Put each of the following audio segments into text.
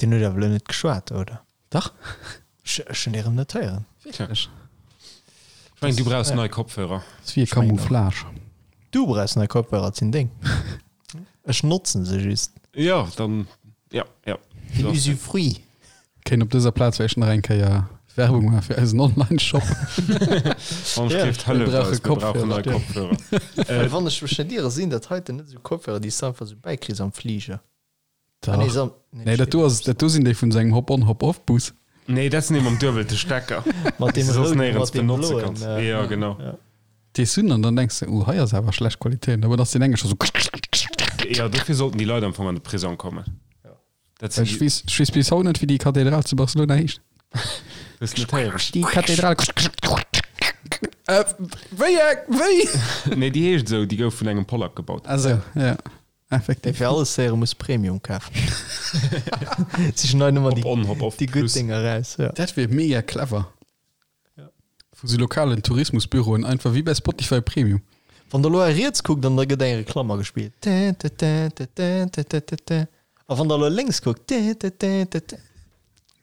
Deen huet awer elo net geschwat, oder? Dach. Ech ech hunn dee rëm net héieren. Wierklech? Ech mengen, du brauchs nei Kopfhörer. Ass wéi e Camouflage. Du brauchs nei Kopfhörer, et sinn deng. Ech notzen se just. Jo, dann, jo, jo. Den Usufruit. Kéint op dëser Plaz vläicht nach eng Kéier Werbung maache fir eisen Online-Shop. Wann ech géif, Mir hëlleft brauche eis, mir brauchen nei Kopfhörer. Kopfhörer. Well wann ech mech net iere, sinn dat heiten net esou Kopfhörer, déi s de einfach esou bäikriss am Fliger. Dach. Ah, nee, so, nee, Nee, dat do ass, dat do sinn déi vun sengem Hop-on-Hop-off-Bus. Nee, dat sinn déi mam duebelte Stecker. Mat déi deem du soss rouden, néierens mat deem benotze bloen, kanns. äh, Ja, genau. ja. Déi sinn an dann denks de, oh, hei ass awer schlecht Qualitéit. Aber dann ass deen enge scho sou. Ja, dofir sollten déi Leit am Fong an de Prisong kommen. Dat sinn Ech déi. weess, ech weess bis haut net, wéi déi Kathedral zu Barcelona heescht. Hues net héieren? Déi Kathedral. Äh, wéi eng? Wéi? Nee, déi heescht esou, déi gouf vun engem Pollack gebaut. Ah sou, ja. Effektiv. Fir alles héiere muss Premium kafen. Sichen hei nëmmer Hop on, hop off déi gutt plus. Dénger raus. Ja. Dat wier mega clever. Vu sou lokalen Tourismusbüroen, einfach wéi bei Spotify Premium. Wann der elo a riets kuckt an da gëtt eng Reklamm agespillt. A wann der elo lénks kuckt,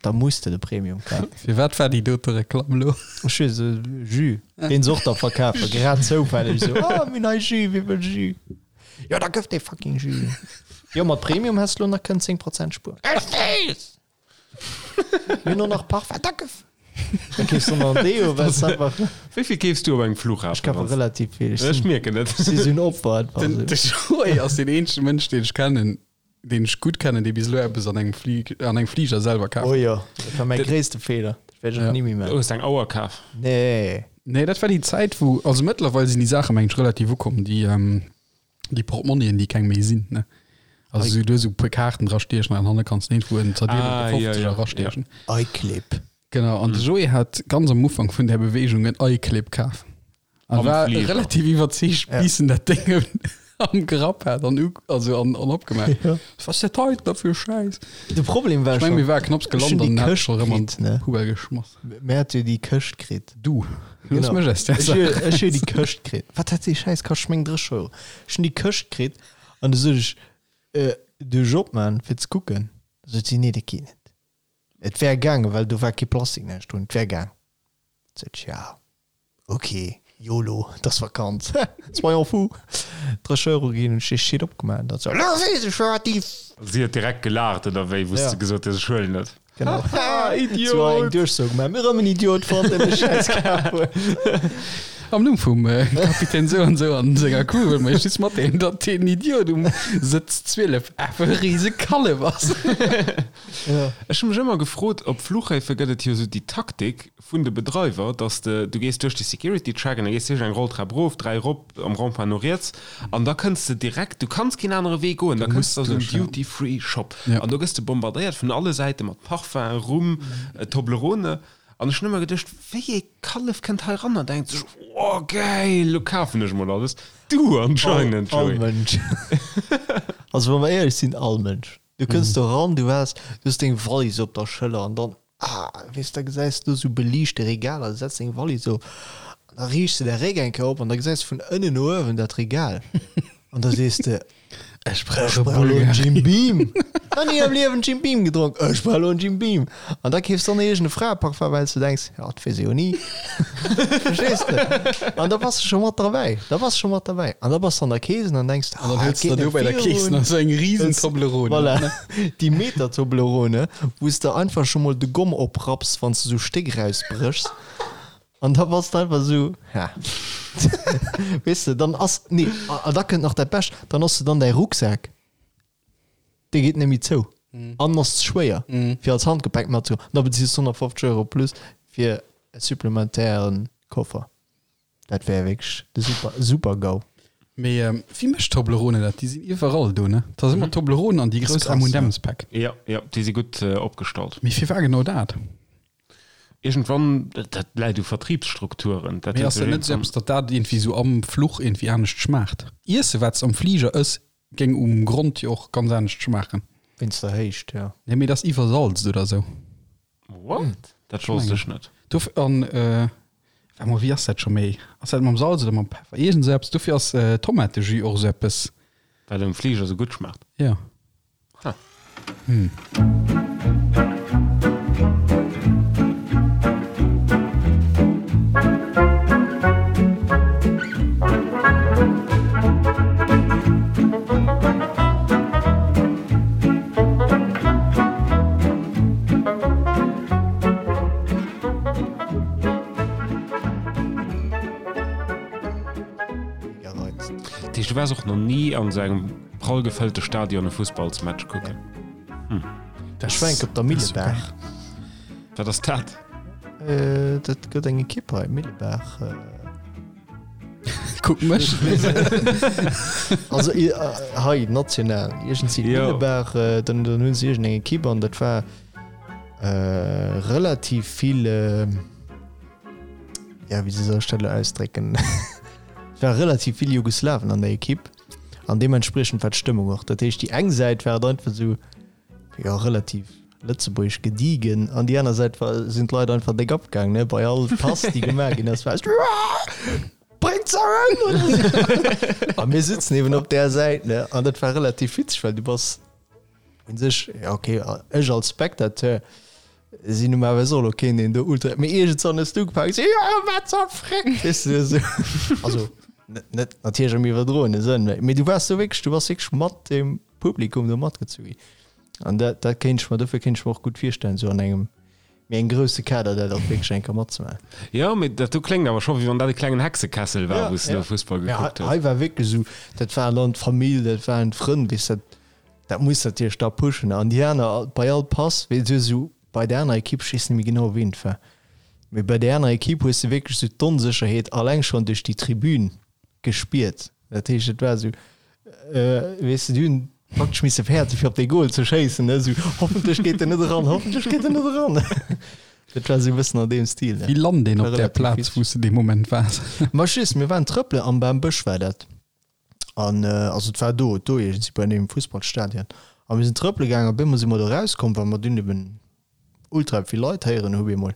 da muss de de Premium kafen. Firwat war déi dote Reklamm elo? Ech weess et, Jus, deen se och da verkafen, grad zoufälleg esou, oh mir hunn nei Jus, wie wëll Jus? Jo da gëff dee fucking Jus. Jo mat Premium häss de lo nach kënnen 10 Prozent spueren. Ech weess! Mir hunn och nach Parfum, da gëff! Da keefs du nach en Deo, well s einfach. Wéi vill keefs du op engem Flughafen? Ech kafe relativ vill. Ech mierken et. Ech si sou en Opfer einfach. Den Joé ass deen eenzege Mënsch, deen ech kennen, deen ech gutt kennen, dee bis elo eppes an engem Fli an engem Fliger selwer kaf. Oh jo, dat war mäi gréisste Feeler. Dat wäert ech och ni méi maachen. Du hues eng Auer kaf? Nee. Nee, dat war déi Zäit, wou, also mëttlerweil sinn déi Saache mengen ech relativ ukomm, déi, déi Portmonnien, déi keng méi sinn, ne? Also sou, du hues esou e puer Kaarten dra stiechen an hanne kanns de iergendwou en zerdeelte Ah, jo, Fofzeger jo, erastiechen. iClip. Genau, an de Joé hat ganz am Ufank vun där Beweegung en iClip kaf. An Am war Flieger. relativ iwwerzeegt, Ja. bis en dat Ding am Grapp hat an, also an, an opgemaach. Ja. Was ist dat hei da fir Schäiss? De Problem war Ech meng, schon, mir war knapps ech hun gelant déi an hat Këscht scho rëm an kritt, ne? d'Poubelle geschmass. Mir hat jo déi Këscht kritt. Du, looss Genau. mech aus där Ech Saach hu ech hu raus. déi Këscht kritt. Wat hat déi Schäiss kascht? Ech meng 30 Euro. Ech hun déi Këscht kritt an du sot ech, äh, duerch opman fir ze kucken. Da sot si, nee, dat geet net. Et wär gaangen, well do war kee Plastik näischt drun. Et wär gaang. Sot ech, ja. Ok, yolo, et ass Vakanz, soyons fous. 30 Euro ginn, hunn ech dee Shit opgemaach an dann sou, elo weess ech wat déi. Si huet direkt gelaacht oder wéi, wou s de gesot hues, ech huelen et? Genau. Haha, Idiot! Sou eng Duerchsoo gemaach, mir rëm en Idiot fonnt, deen de Schäiss kaf huet. Am Numm vum Kapitän sou an sou an senger Crew wëlle mer iech just matdeelen, datt deen Idiot um Sëtz 12 awer e rise Kallef ass. Ech hu mech ëmmer gefrot, op Fluchhäfe gëtt et jo sou déi Taktik, vun de Bedreiwer, dass de, du gees duerch de Security Check an da gees de eng Rolltrap erof, dräi erop, am Rond-point no riets an da kënns de direkt, du kanns keen anere Wee goen, da kënns de a sou en Duty Free Shop an do gëss de bombardéiert vun alle Säite mat Parfum, Rum, Toblerone an ech hunn ëmmer geduecht, wéi ee Kallef kënnt hei ran an denkt sech, oh gäil, lo kafen ech mol alles. Du anscheinend, All Joé. Mënsch. Also wa mer éierlech sinn, all Mënsch. Du kënns do ran, du waars, du hues deng Wallis op der Schëller an dann Ah, weess, da gesäis du sou beliichte Regaler, du setz deng Wallis op an da riichts de däi Réck eng Kéier op an da gesäis du vun ënnen no uewen dat Regal an da sees de, Ech brauch Ech e brauch elo en Bulgari. Jim Beam. Nach ni am Liewen Jim Beam gedronk, ech brauch elo en Jim Beam. An da keefs de dann iergend e Fraeparfum, well s du denks, jo, dat weess ee jo ni. Verstees de? An da bass de scho mat derbäi, da bass de scho mat derbäi. An da bass de an der Kees an dann denks de, An dann ah, huels et de geet der do net bei der Kees virun. nach sou eng risen Toblerone. Voilà. Déi Meter Toblerone, wou s de einfach scho mol de Gomm oprapps, wann s de sou Stéck rausbréchs. An da bass de einfach sou, ha. Weess de, dann ass, nee, a da kënnt nach dat Bescht, dann ass de dann däi Rucksak, dee geet net méi zou an ass ze schwéier, fir als Handgepäck matzehuelen. An da bezils de 150 Euro plus fir e supplementären Koffer. Dat wär wierklech de super, super GAU. Mee wie mécht Toblerone dat? Déi sinn iwwerall do, ne? Dat ass ëmmer Toblerone an déi grouss M&M's Päck. Jo, jo, déi si gutt opgestallt. Mee firwat genau dat? Iergendwann, dat läit u Vertriebsstrukturen. Dat Mee huet ass sech dat net esou iergendwann. eppes, datt dat iergendwéi esou am Fluch iergendwéi anescht schmaacht? Iesse wat s am Fliger ëss, géing um Grond jo och ganz anescht schmaachen. Wéinst der Héicht, jo. Nee, mee dat ass iwwersalzt oder esou. What? Dat wosst ech net. Dof an äh, warte mol, wéi ass dat scho méi? Ass dat mam Salz oder mam Peffer? Iergend esou eppes. Dofir ass äh, Tomatejus och esou eppes. Wat um Fliger esou gutt schmaacht. Ja. Ha. Hm. heescht, du waars och nach ni an esou engem prall gefëllte Stadion e Fussballsmatch kucken? Hm. Ech war enk op der Millebaach. Wat ass dat? Dat gëtt eng Ekipp hei, Millebaach. Kuck mech. Also hei national, iergendwéi Millebaach, dann dann hunn se iergendeng Ekipp an dat war relativ vill, ja wéi soll ech dat elo ausdrécken, et war relativ vill Jugoslawen an der Ekipp an deementspriechend war d'Stëmmung och. Dat heescht déi eng Säit war et einfach esou, jo relativ lëtzebuergesch gediegen an déi aner Säit war sinn d'Leit einfach déck abgaang ne bei all Pass déi gemaach ginn ass war es Bréngt se ëm oder sou. A mir sitzen eben op där Säit ne an dat war relativ witzeg well du bass un sech ja okay ech als Spectateur sinn normalerweis och elo keen deen do ultra mee iergendwann hues du ugefaangen sou jo wat zur Fréck weess de esou also net net natierlech am iwwerdroene Sënn mee du waars do wierklech du bass wierklech mat dem Publikum do matgezu ginn. An dat, dat kéint ech mer, dofir kéint ech mer och gutt virstellen, esou an engem méi engem grousse Kader dat och wierklech eng Kéier matzemaachen. Jo, mee dat do kléngt awer scho wéi wann dat e klengen Hexekessel war, wou s de do Fussball gekuckt hues. Hei war wierklech esou, dat waren dann d'Famill, dat waren d'Frënn, weess dat, dat muss natierlech da pushen. An déi aner, bei all Pass, weess du, esou bei der anerer Ekipp, ech weess net méi genau ween et war, mee bei där anerer Ekipp hues de wierklech esou d'Onsécherheet alleng schonn duerch déi Tribün gespiert. Dat heescht, et war esou, weess de, déi hunn praktesch misse fäerte fir op dee Goal ze schéissen, ne, esou, hoffentlech geet en net eran, hoffentlech geet en net eran. Dat war esou e bëssen an deem Stil, ne. Wéi lant een op där Plaz, wou s de dee Moment waars? Ma just, mir waren trëppelen, am Bambësch war dat. An also et war do, do iergendwéi bei deem Fussballstadion. A mir sinn trëppele gaangen, op eemol si mer do erauskomm, well mer dunn eben ultra vill Leit héieren hu bemol.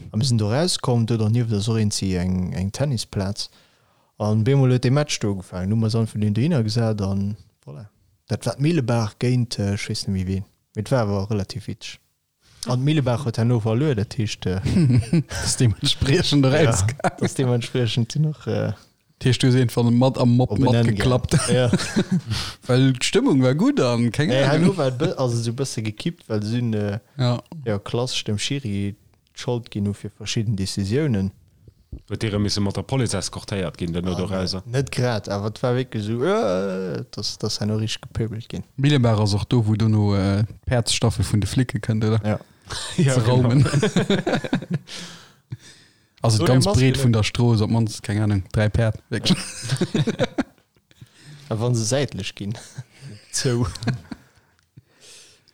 A mir sinn do erauskomm, do dernieft ass och iergendwéi eng, eng Tennisplaz. An bemol huet dee Match do ugefaangen. Hu mer eis einfach dunn dohinner gesat an voilà. Dat war d'Millebaach géint ech weess net méi ween, mee et war awer relativ witzeg. An d'Millebaach huet herno verluer, dat heescht. Ass deementspriechend erausgaangen. Ja, ass deementspriechend dunn och. Dat heescht, du hues einfach mat am Mob matgeklappt. Ja. Well d'Stëmmung war gutt an keng Ahnung. Nee, herno war et ass et esou e bësse gekippt, well se hunn, jo, klassesch dem Schiri d'Schold ginn hu fir verschidden Decisiounen. Huet dee rëm misse mat der Police eskortéiert ginn duerno dorauser? Net grad, awer et war wierklech esou, Äh! Et ass, et ass herno richteg gepöbelt ginn. Millebaach ass och do, wou dono d'Päerdsstaffel vun de Flicke kënnt, oder? Ja. Ze raumen. Also d'ganz Breet vun der Strooss, op d'mannst, keng Ahnung, 3 Päerd, wierklech. A wa se säitlech ginn, zou.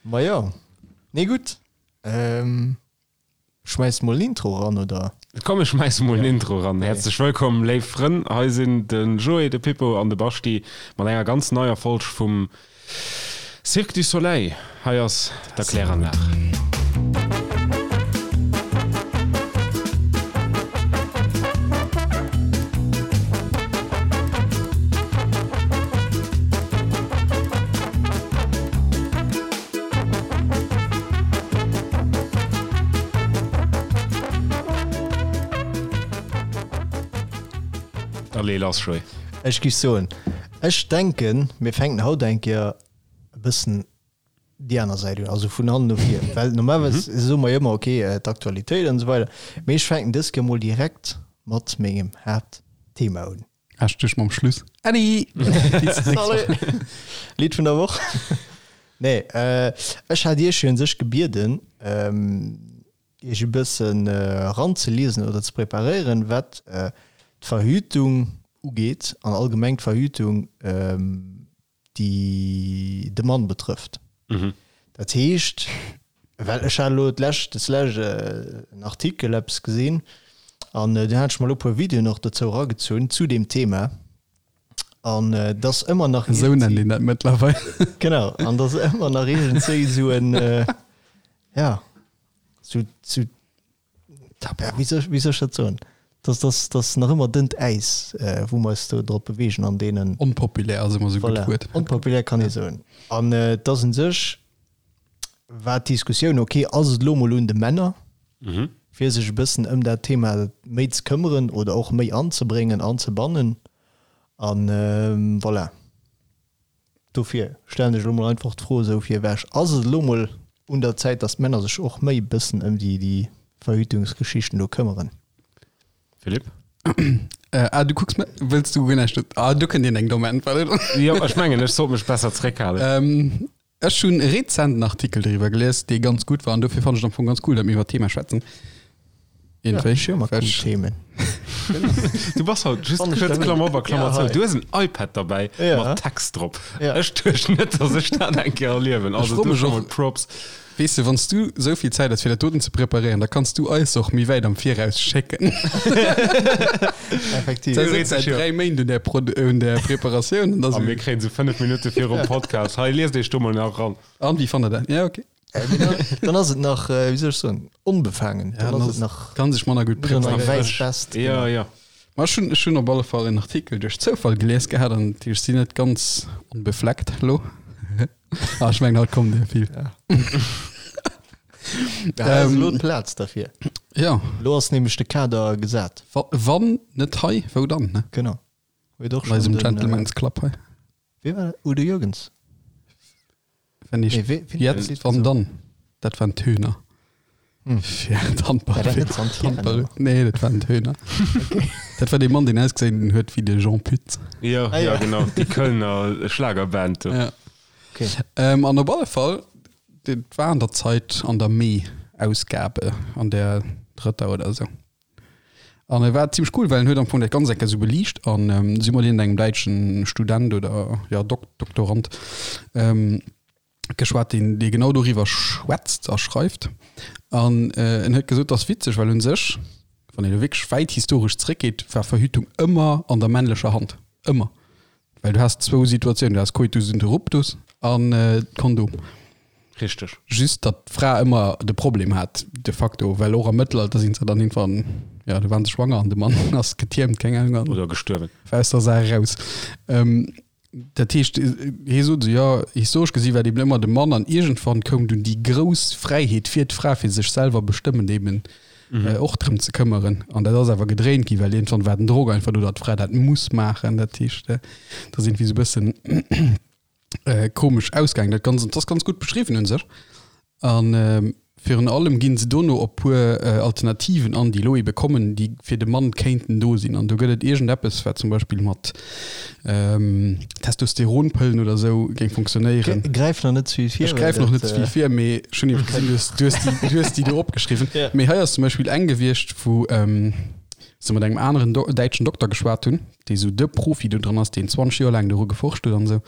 Ma jo, nee gutt. Schmäiss mol en Intro ran, oder? Komm ech schmäisse mol en Intro ran. Häerzlech wëllkomm léif Frënn, hei sinn de Joé, de Pippo an de Baschti mat enger ganz neier Folg vum Cirque du Soleil. Hei ass d'Erkläranlag. Da lee lass, Joé. Ech géif soen, ech denken, mir fänken haut eng Kéier e bëssen déi aner Säit un, also vun hannen no vir, well normalerweis soe mer jo ëmmer, okay, d'Aktualitéit an esou weider, mee ech fänken dës Kéier mol direkt mat mengem Haaptthema un. Hast du mam Schluss. Äddi! Salut! Lidd vun der Woch? Nee, ech hat Iech jo un sech gebieden, Iech e bëssen eranzeliesen oder ze preparéieren, wat d'Verhütung ugeet an allgemeng d'Verhütung, déi de Mann betrëfft. Dat heescht, well ech hat elo d'lescht, des lescht en Artikel eppes gesinn an dunn hat ech mer elo e puer Videoen och dozou eragezunn zu deem Thema an et ass ëmmer nach Esou nennt een dat mëttlerweil. Genau, an et ass ëmmer nach iergendzwéi esou en, ja, sou, sou Tabu. Wéi soll, wéi soll ech dat soen? Dass, dass, dass nach ëmmer dënnt Äis, wou mer eis do drop beweegen an deenen. Onpopulär ass ëmmer esou e gutt Voilà, Wuert. onpopulär kann ee soen. An et ass un sech, war d'Diskussioun, okay, ass et elo mol un de Männer, fir sech e bëssen ëm dat Thema méi ze këmmeren oder och méi anzebréngen, anzebannen? An voilà. Dofir stellen ech elo mol einfach d'Fro esou fir ewech, Ass et elo mol un der Zäit, datt d'Männer sech och méi e bëssen ëm déi Verhütungsgeschichten do këmmeren? Philippe? Äh, ah, du kucks wëlls du guer näischt Ah, du kënnt Dir eng domm Äntwert. Jo, ech mengen, ech sollt mech besser zréckhalen. Ähm, ech hunn rezent en Artikel driwwer gelies, dee ganz gutt war an dofir fannen ech et am Fong ganz cool, datt mir iwwer d'Thema schwätzen. Iergendwéi. Ech hu ëmmer cool Themen. Du bass haut just kuerz Klammer op a Klammer zou. Du hues en iPad derbäi mat Text drop. Ech duecht net, datt ech dat eng Kéier erliewen. Also do scho mol Props. Weess de, wann s du esou vill Zäit hues fir dat doten ze preparéieren, da kanns du eis och méi wäit am Viraus schécken. Effektiv. Da sëtzt säit 3 Méint un där Prod un där Preparatioun an da A mir kréien se 5 Minutte virum Podcast. Hei, liest iech do mol nach eran. An, wéi fannt der dat? Ja, okay. Dann ass et nach, wéi soll ech soen, onbefaangen. Ja, Dann ass et nach kann sech manner gutt net an preparéieren. eng wäiss Vest. Ja, ja. Ma ech hunn, ech hunn op alle Fall en Artikel duerch Zoufall gelies gehat an ech sinn net ganz onbefleckt elo. Ah, ech mengen haut kommen der vill. Ja. Ja, hei ass elo d'Plaz derfir. Ja. Elo ass nämlech de Kader gesat. Wa, wann net hei, wou dann, ne? Genau. Huet och An eisem schonn den, Gentleman's Club hei. Wee war dat? Udo Jürgens? Wenn ich Nee, wee, ween huet dat jetzt, Lidd wann gesongen? dann. Dat waren d'Hühner. Hm. Fir d'Handball. War dat net Santiago? Handball. Nee, dat waren d'Hühner. Okay. Dat war dee Mann, deen ausgesinn huet wéi de Jean Pütz. Ja, Ah, ja, ja. genau. Déi Kölner Schlagerband do. Ja. Okay. Ähm, an op alle Fall, dat war an der Zeit an der Mee-Ausgabe, an der drëtter oder esou. An e war zimmlech cool, well en huet am Fong dat Ganzt eng Kéier esou beliicht an ähm, si mat iergendengem däitschen Student oder ja, Dok Doktorand ähm, geschwat, deen, dee genau doriwwer schwätzt a schreift. An äh, en huet gesot, dat ass witzeg, well un sech, wann een elo wierklech wäit historesch zréckgeet, war Verhütung ëmmer an der männlecher Hand. Ëmmer. Well du has zwou Situatiounen, du has Coitus interruptus an d'Kondom. Richteg. Just datt d'Fra ëmmer de Problem hat, de facto, well och am Mëttelalter sinn se dann irgendwann, ja, du waren se schwanger an de Mann ass getiermt, keng Ahnung, an Oder gestuerwen. war aus der Saach eraus. Ähm, dat heescht, hie sot esou, jo, historesch gesi war et eben ëmmer de Mann an iergendwann koum dunn déi grouss Fräiheet fir d'Fra, fir sech selwer bestëmmen eben och drëm ze këmmeren. An dat ass awer gedréint ginn, well iergendwann war den Drock einfach do, datt d'Fra dat muss maachen. Dat heescht, dat ass iergendwéi esou e bëssen komesch ausgaangen dat Ganzt. An dat ass ganz gutt beschriwwen un sech. An virun allem ginn se dono op puer Alternativen an, déi elo ebe kommen, déi fir de Mann kéinten do sinn. An do gëtt et iergendeppes, wat zum Beispill mat Testosteronpëllen oder esou géing funktionéieren. Gräif nach net ze vill vir. Ech gräif nach net ze vill vir, mee ech hunn eben gesinn, du hues, du hues déi, du hues déi do opgeschriwwen. Ja. Mee hei ass zum Beispill eng gewiescht, wou se mat engem aneren Do däitschen Dokter geschwat hunn, dee sou de Profi do dran ass, deen 20 Joer laang doru geforscht huet an esou.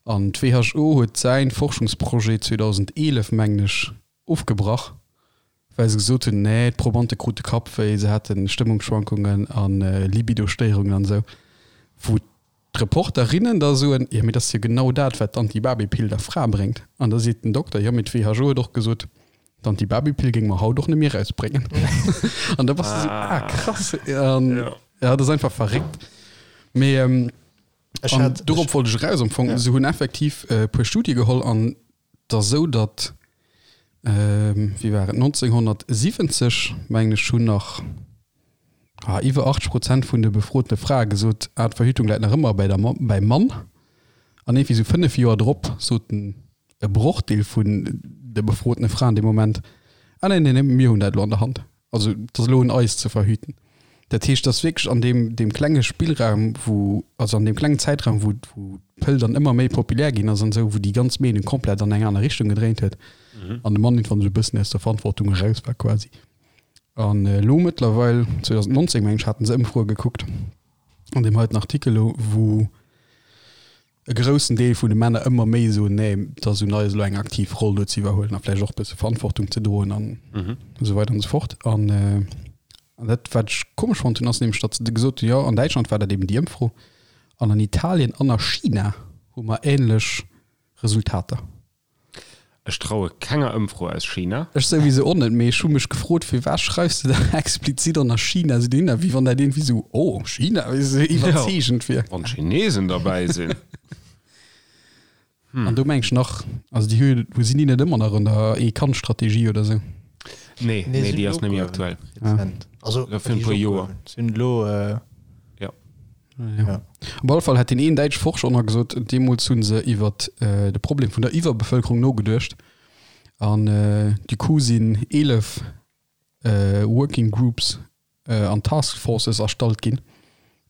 An d'WHO huet säin Forschungsprojet 2011, mengen ech, ofgebrach, well se gesot hunn, nee, d'Probante krute Kappwéi, se hate Stëmmungsschwankungen a Libidostéierungen an esou. Wou d'Reporterinnen da soen, jo mee dat ass jo genau dat, wat d'Antibabypill der Fra bréngt. An da seet den Dokter, jo mee d'WHO huet och gesot, d'Antibabypill géinge mer haut och net méi erausbréngen. An da bass de esou, ah krass. An ja, dat ass einfach verréckt. Mee Ech An hat, dorop wollt ech eraus am Fong. Ja. Se hunn effektiv e puer Studie geholl an et ass esou, datt, wéi war et, 1970, mengen ech, hunn nach ah, iwwer 80 Prozent vun de befrotene Frae gesot, ah, d'Verhütung läit nach ëmmer bäi der Mamm, bäim Mann. An iergendwéi esou 5 Joer drop soten e Brochdeel vun de befrotene Fraen dee Moment, ah nee, nee, nee, mir hunn dat elo an der Hand. Also et ass elo un eis ze verhüten. Dat heescht, dass wierklech an deem, deem klenge Spillraum, wou, also an deem klengen Zäitraum, wou, wou d'Pëll dann ëmmer méi populär ginn ass an esou, wou déi ganz Meenung komplett an eng aner Richtung gedréint huet an de Mann irgendwann esou e bëssen aus der Verantwortung eraus war quasi. An elo mëttlerweil, 2019 meng ech, haten se Ëmfroe gekuckt an deem heiten Artikel elo, wou, e groussen Deel vun de Männer ëmmer méi soen, nee, et ass un eis elo eng aktiv Roll do ze iwwerhuelen a vläicht och e bësse Verantwortung ze droen an esou weider an esou fort. An dat, wat ech komesch fonnt hunn, ass nämlech, datt se gesot hunn, jo, an Däitschland war dat eben déi Ëmfro an an Italien an a China hu mer änlech Resultater. Ech traue kenger Ëmfro aus China. Ech souwisou och net, mee ech hu mech gefrot, firwat schreifs de da explizit och nach China esou dohinner, wéi wann dat iergendwéi esou, oh, China, wéi esou iwwerzeegend wier. Wann d'Chinesen derbäi sinn. An do meng ech nach, also déi hu, hu sinn déi net ëmmer nach an der Ee-Kand-Strategie oder esou? Nee, nee, déi ass net méi aktuell. Rezent. Also, Ja, fir e puer Joer. Sinn elo. Ja. Ja. Op alle Fall hat deen een däitsche Forscher och nach gesot, deemools hu se iwwer de Problem vun der Iwwerbevëlkerung nogeduecht an du coup sinn 11 Working Groups an Task Forces erstallt ginn.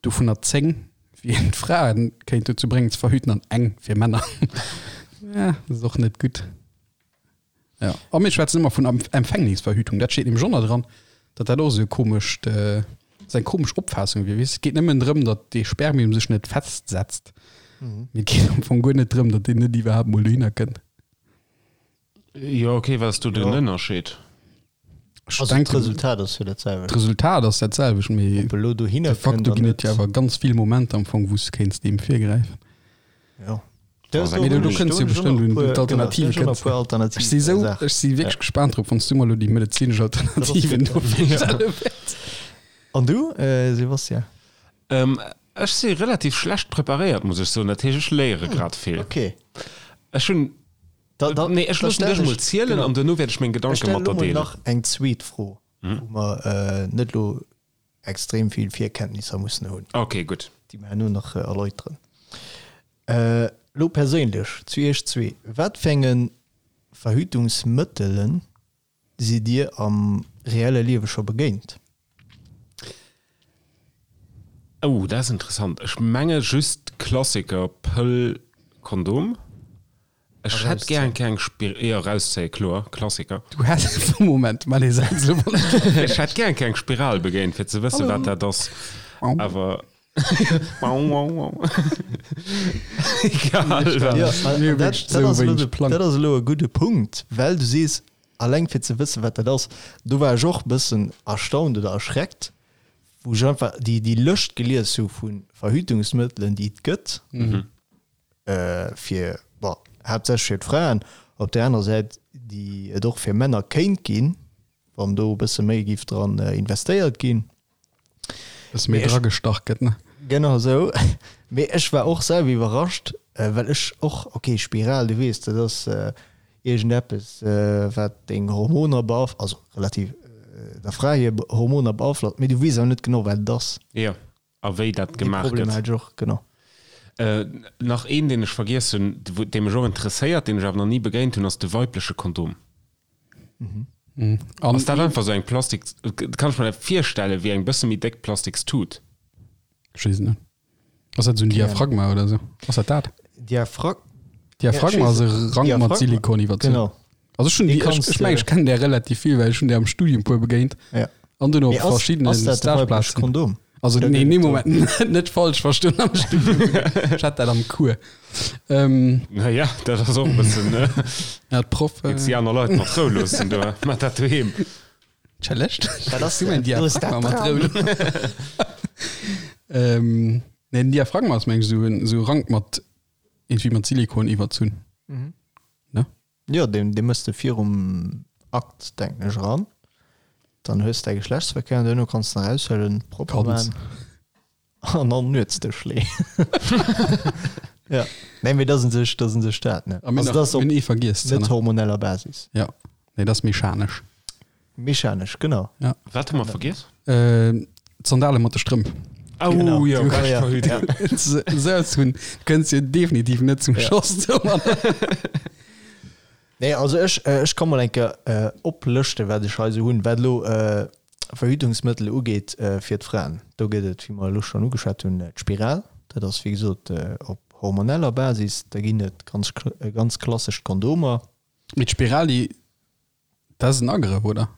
Dovunner 10 wéi een d'Frae kéint dozou bréngen ze verhüten an eng fir Männer. Ja, dat ass och net gutt. Ja, a mir schwätzen ëmmer vun Empfängnisverhütung, dat steet nämlech och nach dran, datt dat och esou e komescht, esou eng komesch Opfaassung wier. Weess, et geet nëmmen drëm, datt dee Spermium sech net festsetzt. Mee et geet am Fong guer net drëm, datt deen net iwwerhaapt mol dohinner kënnt. Jo, okay, wat ass do den Jo. Ënnerscheed? Ech Also denken, d'Resultat ass jo dat selwecht. d'Resultat ass dat selwecht, mee Ob elo dohinner de facto kënnt ginn an et jo net. awer ganz vill Momenter am Fong, wou s de kéints deem virgräifen. Jo. Mee do kënns jo bestëmmt un d'Alternative kënns. Ech si sou, ech si wierklech gespaant drop, wann s du mer elo déi medezinesch Alternativen do virstelle wäerts. An du, Sebastian? Ech si relativ schlecht preparéiert, muss ech soen. Dat heescht, ech léiere grad vill. Okay. Ech hunn, nee, ech loossen dech emol zielen an duerno wäert ech meng Gedanke mat der deelen. Ech stellen elo mol nach eng zweet Fro, wou mer net elo extrem vill Virkenntnisser mussen hunn. Okay, gutt. Déi mer herno nach erläuteren. Elo perséinlech zu Iech zwee, Wat fir enge Verhütungsmëttele sidd Dir am reelle Liewe scho begéint? Oh, dat ass interessant. Ech menge just d'Klassiker, Pëll, Kondom. Ech hätt gär eng kleng Spir, jo, erauszéien, kloer, Klassiker. Du häss, Moment, mal ee Saz elo wann ech. Ech hätt gär eng kleng Spiral begéint, fir ze wëssen, wat dat ass. Awer. Egal wat. Jo, an dat, dat ass elo de, dat ass elo e gudde Punkt, well du sees, alleng fir ze wëssen, wat dat ass. Do war ech och e bëssen erstaunt oder erschreckt, wou ech einfach déi, déi Lëscht gelies hu vu Verhütungsmëttelen, déi et gëtt. Fir, bon, haaptsächlech fir d'Fraen, op där anerer Säit, déi et och fir Männer kéint ginn, wann do e bësse méi géif dran investéiert ginn. Bësse méi dragestach gëtt, ne? Genau esou. Mee ech war och selwer iwwerrascht, well ech och, okay, Spiral, du weess, dat ass iergendeppes, wat deng Hormoner beaf-, also relativ der Fra hir Hormoner beaflosst, mee du weess awer net genau, wat et ass. Jo. A wéi dat Dee gemaach Problem gëtt. hat ech och, genau. Nach een, deen ech vergiess hunn, dee mech och interesséiert, deen ech awer nach ni begéint hunn, ass de weibleche Kondom. Ass dat einfach esou eng Plastik, kann ech mer dat virstellen, wéi eng bësse méi déck Plastikstut? Ech weess et net. Ass dat esou en Diaphragma oder esou? Ass dat dat? Diaphrag. Diaphragma ass e Rank mat Silikon iwwerzunn. Genau. Also ech hunn déi, ech, ech mengen ech kennen där relativ vill, well ech hunn där am Studium puer begéint. Ja. An dunn op Mee ass, verschiddene ass dat de weibleche Stageplazen. Kondom? Also Oder nee, gëtt nee et do- Moment, net falsch verstoen am Studium. Ech hat dat am Cours. Ähm, Naja, dat ass och e bëssen, ne? ja, d'Proff. Jetzt déi Äh, aner Leit mat Rou loossen do, mat dat doheem. Challenge? Wat ass Du mein dat? Do ass Diaphragma dat mat dran. Rou. Ähm, nee, den Diaphragma ass meng ech esou en esou Rank mat irgendwie mat Silikon iwwerzunn. Mhm. Ne? Jo, deen, dee mëss de virum Akt, denken ech, eran. Dann hues de däi Geschlechtsverkéier an duerno kanns de en eraushuelen, propper Kanns. maan an an den Nuetsdësch leeën. Ja. Nee, mee dat ass un sech, dat ass un sech dat, ne? A mir Also nach, dat ass mir op hunn ee vergiess, net Zenner. hormoneller Basis. Ja. Nee, dat ass mechanesch. Mechanesch, genau. Ja. Wat hu mer vergiess? Äh, d'Sandale mat de Strëmp. Oh, Genau. jo, Ja, bescht ja. Verhütung. Esou ze hunn, kënns jo definitiv net zum Ja. Schoss domadder. Nee, also ech, ech ka mol eng Kéier äh, oplëschten, wat ech hei esou hunn, wat elo äh, Verhütungsmëttel ugeet äh, fir d'Fraen. Do gëtt et, wéi mer elo schonn ugeschwat hunn, d'Spiral. Dat ass, wéi gesot, äh, op hormoneller Basis. Da ginn et ganz, ganz klassesch d'Kondomer. Mee d'Spiral, déi Dat ass en Agrëff, oder?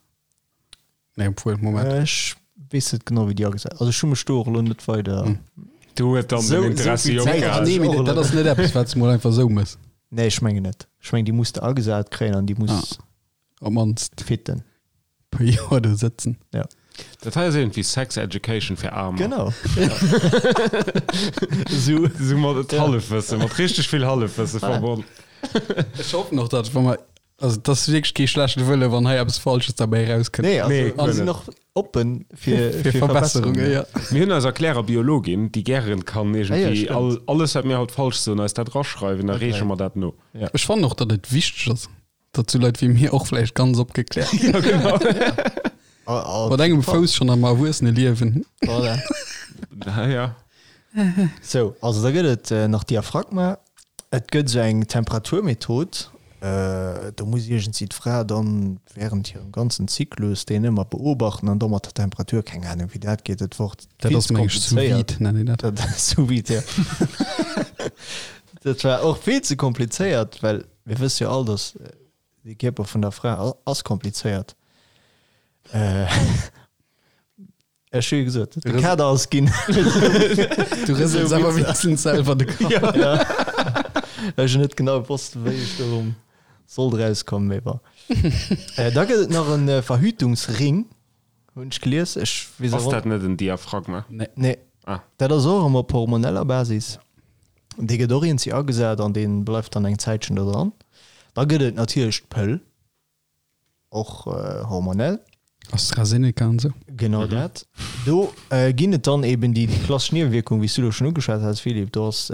Nee, obwuel, Moment. Ech weess net genau, wéi déi agesat Also ech hu mech do och elo net weider. Hm. Do huet dann Sou- den Interessi sou vill Zäit opgehal. Nee, mee dat ass net eppes, wat s de mol einfach sou mëss. Nee, ech mengen net. Ech mengen, déi muss de agesat kréien an déi muss Op d'mannst fitten. puer Joer do sëtzen. Ja. Dat hei ass iergendwéi Sex Education fir Aarmer. Genau. Sou. Sou mat Hallefwëssen, mat richteg vill Hallefwësse verbonn. Ech hoffen och, datt wa mer Also et ass wierklech kee schlechte Wëlle wann hei eppes Falsches derbäi erauskënnt. Nee, also Nee, mir sinn och oppen fir, Fir Verbesserungen, ja. Mir hunn eis Erklärer-Biologin, déi gären kann Ah ja, iergendwéi stimmt. all, alles wat mir haut falsch soen, eis dat raschreiwen, da reeche mer dat no. Ja. Ech fannen och, datt et wichteg ass, datt sou Leit wéi mir och vläicht ganz opgekläert ginn. Ja, genau. Mat engem Fouss schonn am Erwuesseneliewen. Voilà. Ja, ja. Sou, also da gëtt et nach Diaphragma. Et gëtt esou eng Temperaturmethod. Do muss iergendwéi d'Fra dann während hirem ganzen Zyklus deen ëmmer beobachten an da mat der Temperatur, keng Ahnung wéi dat geet, dat wor Dat vill ass ze meng ech sous komplizéiert. vide nennen een dat. Dat sous vide, jo. Dat war och vill ze komplizéiert, well mir wësse jo all, datt de Kierper vun der Fra ass komplizéiert. Ech hu jo gesot, de Kader ass ginn. Du rësels awer wéinstens selwer de Kapp. Ja. Ech hunn net genau gewosst, wéi ech do sollt erauskommen, mee bon. Da gëtt et nach e Verhütungsring, hunn ech gelies. Ech weess Ass dat net en Diaphragma? Nee. Nee. Ah. Dat ass och ëmmer op hormoneller Basis. Dee gëtt och iergendwéi agesat an dee bleift dann eng Zäitchen do dran. Da gëtt et natierlech d'Pëll. Och hormonell. AstraZeneca an esou. Genau dat. Do ginn et dann eben déi klassesch Niewewierkung, wéi s du elo schonn ugeschwat has, Philippe. Do ass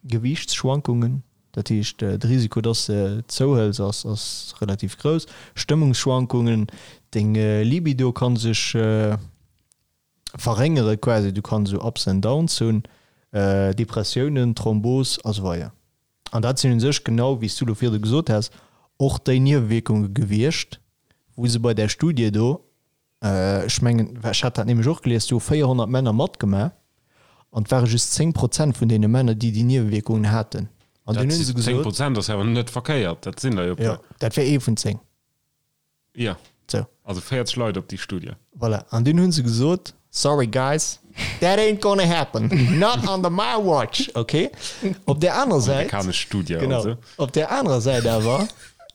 Gewiichtsschwankungen, dat heescht de Risiko, dass de zouhëls, ass ass relativ grouss. Stëmmungsschwankungen, deng Libido ka sech verréngere quasi, du kanns esou Ups and Downs hunn, Depressiounen, Thrombos a sou weider. An dat sinn u sech, genau wéi s du elo virdu gesot has, och déi Niewewierkunge gewiescht, wou se bei där Studie do, ech mengen, ech hat dat nämlech och gelies, do hu 400 Männer matgemaach an et ware just 10 Prozent vun deene Männer, déi déi Niewewierkungen haten. An dunn hu se gesot. 10 Prozent ass awer net verkéiert, dat sinn der jo e puer. Jo, dat wär ee vun 10. Jo. Sou. Also 40 Leit op déi Studie. Voilà. An dunn hu se gesot, Sorry guys, that ain't gonna happen, not under my watch. Ok. Op där anerer Säit. Amerikanesch Studie, genau. also. Op där anerer Säit awer.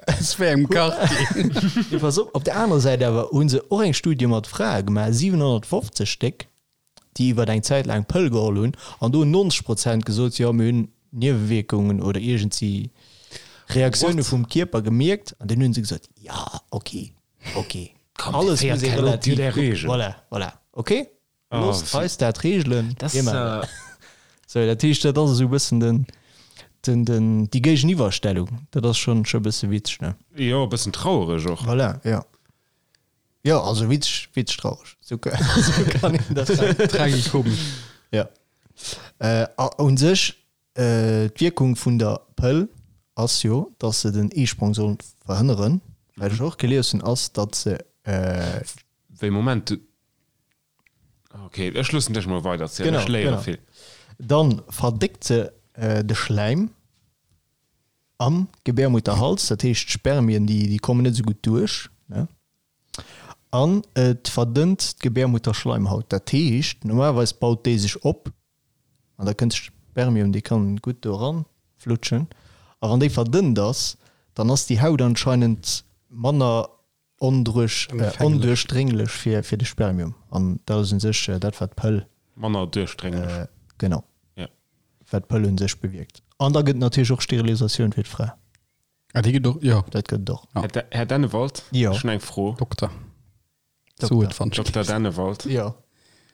Es wär im Quartier. Nee, pass op, op där anerer Säit awer hu se och eng Studie mat Frae gemaach, 750 Stéck. déi iwwert eng Zäit laang d'Pëll geholl hunn, an do hunn 90 Prozent gesot, jo mir hunn Niewewierkungen oder iergendsi Reaktioune vum Kierper gemierkt, an dunn hu se gesot, jo ok, ok, alles muss ee relativ kucken, voilà, voilà, ok, loosst eis dat reegelen, mir maachen dat. Sou, dat heescht, dat ass esou e bëssen den, den, den, déi Géigeniwwerstellung, dat ass schonn, scho e bësse witzeg, ne? Jo, e bëssen trauereg och. Voilà, jo. Jo, also witzeg, witzeg traureg. Sou kann een dat sagen. Tragikomesch. Ja. Äh, a un sech, äh, d'Wierkung vun der Pëll ass jo, dass se den Eesprong soll verhënneren. Wat ech och gelies hunn, ass, datt se, äh, Wéi, Moment, du. Ok, ech loossen dech mol weiderzielen, Genau, ech léiere genau. vill. Dann verdéckt se, äh, de Schläim am Gebärmutterhals, dat heescht d'Spermien, déi, déi kommen net esou gutt duerch, ne? An et verdënnt d'Gebärmutterschleimhaut. Dat heescht, normalerweis baut déi sech op an da kënnt d'Spermium, déi kann gutt do eran flutschen. A wann déi verdënnt ass, dann ass déi Haut anscheinend manner onduerchdrénglech fir fir de Spermium. An dat ass u sech dat, wat d'Pëll. Manner duerchdrénglech. Genau. Ja. Wat d'Pëll u sech bewierkt. An da gëtt et natierlech och Sterilisatioun fir d'Fra. Ah, déi gëtt och, jo. Dat gëtt et och. Ja. Här, Här Dennewald, Jo. ech hunn eng Fro. Dokter. Dokter. So et fand Dokter Dennewald, Jo.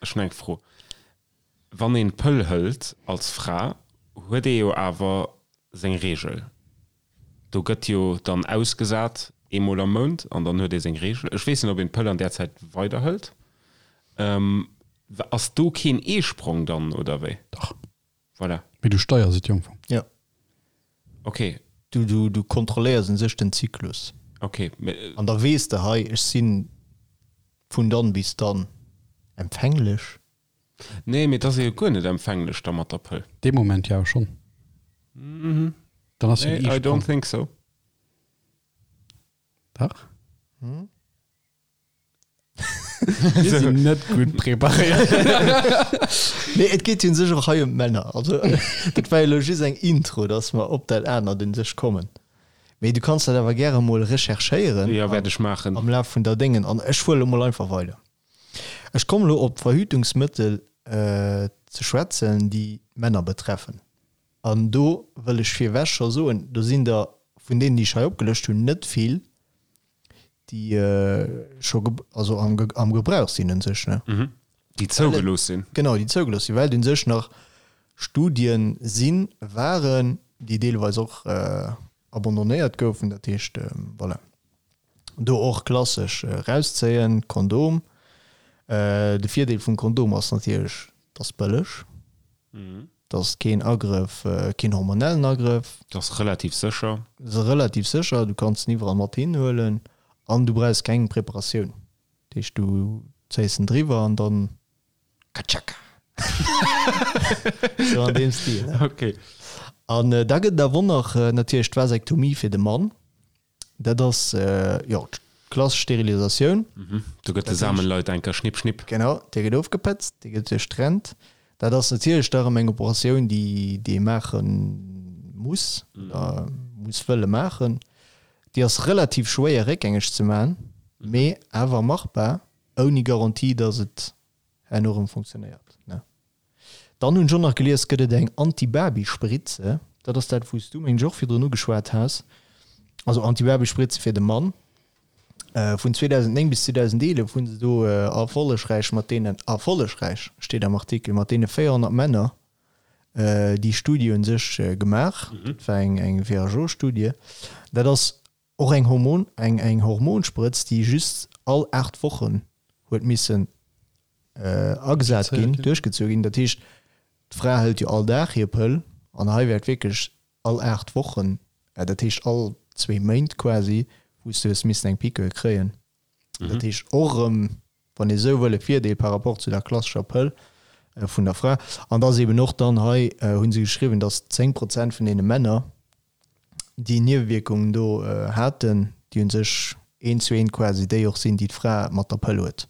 ech hunn eng Fro. Wann een d'Pëll hëlt als Fra, huet ee jo awer seng Reegel. Do gëtt jo dann ausgesat eemol am Mount an dann huet ee seng Reegel. Ech weess net, ob een d'Pëll an där Zäit weiderhëlt. Ass do keen Eesprong dann, oder wéi? Dach. Voilà. Mee du steiers et jo am Fong. Jo. Ok. Du, du, du kontrolléiers un sech den Zyklus. Ok, mee. An da weess de, hei, ech si vun dann bis dann empfänglech. Nee, mee et ass ee jo guer net empfänglech da mat der Pëll. Dee Moment jo schonn. Dann ass jo Nee, den I Eisprong. don't think so. Dach. Mir sinn net gutt preparéiert. Nee, et geet jo un sech och hei ëm d'Männer. Also, dat war jo elo just eng Intro, dass mer op dat anert un sech kommen. Mee du kanns dat awer gäre mol recherchéieren. Jo, wäert ech maachen. Am Laf vun der Déngen. An ech fuere elo mol einfach weider. Ech kommen elo op d'Verhütungsmëttel ze schwätzen, déi d'Männer betreffen. An do wëll ech virwech scho soen, do sinn der vun deenen, déi ech hei opgelëscht hunn, net vill, déi scho also am, am Gebrauch sinn un sech, ne? Mhm. Déi zougelooss sinn. Genau, déi zougelooss sinn, well et un sech nach Studien sinn, waren, déi deelweis och abandonnéiert goufen. Dat heescht, voilà, do och klassesch erauszéien, Kondom. De Virdeel vum Kondom ass natierlech, et ass bëlleg. Et ass keen Agrëff, keen hormonellen Agrëff. Et ass relativ sécher. Et ass relativ sécher, du kanns en iwwerall mat hinhuelen an du brauchs keng Preparatioun. Dat heescht, du zéiss en driwwer an dann katschaka! Sou an deem Stil, ne? Ok. An da gëtt et awer och nach natierlech d'Vasektomie fir de Mann. Dat ass, jo, d'klassesch Sterilisatioun. Do gëtt de Samenleiter eng Kéier schnipp, schnipp. Genau, dee gëtt ofgepëtzt, dee gëtt duerchtrennt. Dat ass natierlech da erëm eng Operatioun, déi, déi ee maache muss oder muss wëlle maachen. Déi ass relativ schwéier réckgängeg ze maachen, mee awer machbar, ouni Garantie, datt et herno erëm funktionéiert, ne? Dann hunn ech och nach gelies, gëtt et eng Antibabyspritze. Dat ass dat, wou s du, meng ech, och virdrun ugeschwat has. Also Antibabyspritze fir de Mann. Vun 2009 bis 2011 hu se do erfollegräich mat deenen, erfollegräich steet am Artikel, mat deene 400 Männer déi Studie u sech gemaach. Dat war eng eng WHO-Studie. Dat ass och eng Hormon, eng eng Hormonsprëtz, déi just all 8 Wochen huet missen agesat ginn, duerchgezu ginn. Dat heescht, d'Fra hëlt jo all Dag hir Pëll an hei wäert wierklech all 8 Wochen, dat heescht all zwee Méint quasi, wou s du hues missen eng Piqûre kréien. Dat heescht och erëm, wann ee sou wëll, e Virdeel par rapport zu der klassescher Pëll vun der Fra. An da ass eben och dann hei, hu se geschriwwen, datt 10 Prozent vun deene Männer, déi Niewewierkungen do haten, déi u sech eent zu eent quasi déi och sinn, déi d'Fra mat der Pëll huet.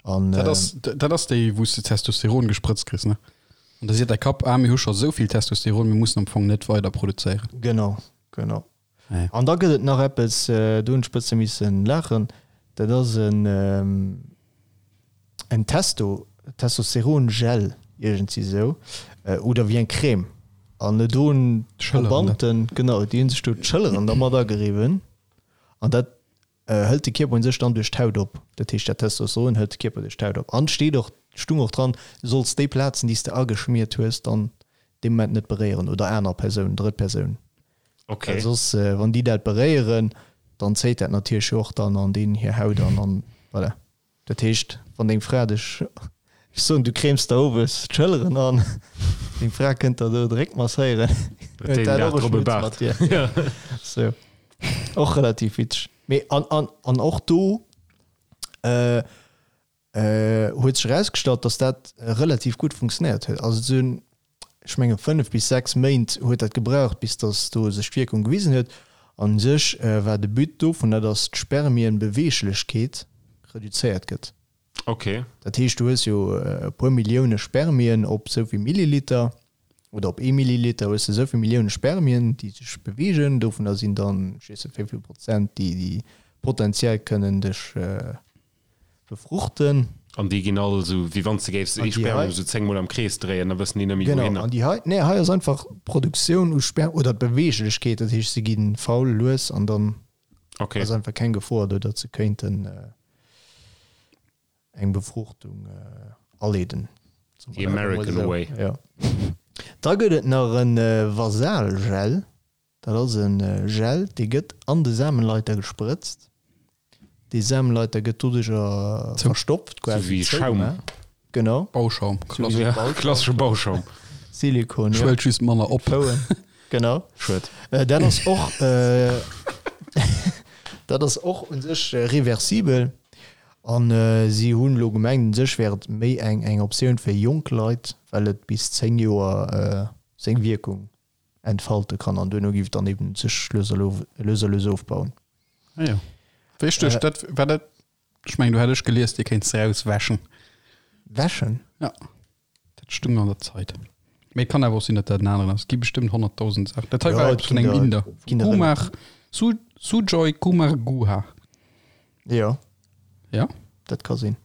An, dat ass, dat ass déi, wou s de Testosteron gesprëtzt kriss, ne? An da seet däi Kapp, ah, mir hu scho sou vill Testosteron, mir mussen am Fong net weider produzéieren. Genau, genau. An da gëtt et nach eppes, do hunn ech bësse missen laachen, dat ass en en Testo, Testosteron-Gel, iergendwéi esou, oder wéi eng Crème. An do hunn d'Probanden, genau, déi hu sech do d'Schëlleren dermat ageriwwen an dat hëlt de Kierper un sech dann duerch d'Haut op. Dat heescht, dat Testosteron hëlt de Kierper duerch d'Haut op. An steet och, stung och dran, du solls déi Plazen, déi s de ageschmiert hues, dann dee Moment net beréieren oder aner Persounen, drëtt Persounen. Okay. Well soss, wann déi dat beréieren, dann zéit dat natierlech jo och dann an deenen hir Haut an an voilà. Dat heescht, wann deng Fra dech, ech soen, du cremes der owes d'Schëlleren an, deng Fra kënnt der do de Réck masséieren, huet dat och e Schmutz mat dir. Sou, och relativ witzeg. Mee an, an, an och do huet sech erausgestallt, datt dat relativ gutt funktionéiert huet. Also et sinn, ech menge 5 bis 6 Méint huet dat gebraucht, bis datt do sech d'Wierkung gewisen huet. An u sech war de But dovunner, datt d'Spermienbeweeglechkeet reduzéiert gëtt. Ok. Dat heescht, du hues jo e puer Millioune Spermien op esou vill Milliliter, oder op ee Milliliter hues de esou vill Millioune Spermien, déi sech beweegen. Dovunner sinn dann, ech weess net wéi vill Prozent, déi déi potenziell kënnen dech befruchten. An déi ginn all esou, wéi wann s de géifs ee Spermium esou 10 mol am Krees dréien, da wëssen déi net méi wouhinner. Genau, an déi hei, nee, hei ass einfach d'Produktioun u Sperm oder d'Beweeglechkeet, dat heescht se gi faul, lues an dann ass einfach keng Gefor do, datt se kéinten eng Befruchtung aleeden. The American way. Jo. Da gëtt et nach e Vasalgel. Dat ass e Gel, dee gëtt an de Samenleiter gesprëtzt. Dee Samenleiter gëtt doduercher verstopft, quasi zou. Sou wéi Schaum. Genau. Bauschaum, klassesche Bauschaum. Silikon, jo. Schwëllt just manner op. Genau. Schued. Dat ass och, dat ass och u sech reversibel. An si hunn elo gemengt, u sech wär et méi eng eng Optioun fir jonk Leit, well et bis 10 Joer seng Wierkung entfalte kann an duerno giff et dann eben sech lues a lues a lues ofbauen. Ah jo. Wéi ech duecht, dat war dat, ech mengen do hätt ech gelies, dir kéint se rauswäschen. Wäschen? Ja, dat stung an der Zeit. Mee et kann awer och sinn, datt dat en aneren ass. Et gi bestëmmt 100.000 Saachen. Dat hei war eppes vun engem Inder, vum Kumar, Su, Sujoy Kumar Guha. Jo. Ja? Dat ka sinn.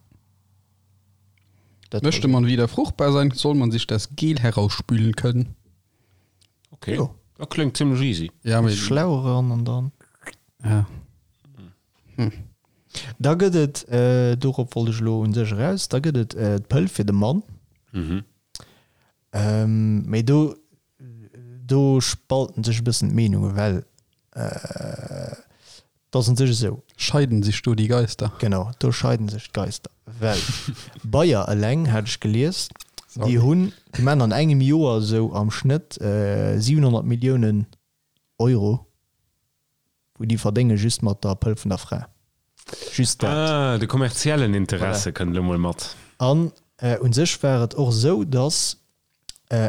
Dat Möchte man wieder fruchtbar sein, soll man sich das Gel herausspülen können. Okay. Jo. Dat kléngt zimmlech easy. Ja, mee. Schlau eran an dann. Ja. Hm. Da gëtt et, äh, dorop wollt ech elo un sech eraus, da gëtt et äh, d'Pëll fir de Mann. Mhm. Ähm, mee do, do spalten sech e bëssen d'Meenungen, well äh, 't ass un sech esou. Scheiden sich do die Geister? Genau, do scheiden sech d'Geister, well Bayer eleng, hat ech gelies. Déi hunn, déi maachen an engem Joer esou am Schnëtt 700 Milliounen Euro, wou déi verdénge just mat der Pëll vun der Fra. Just dat. Ah, de kommerziellen Interesse kënnt elo mol mat. An u sech war et och esou, datt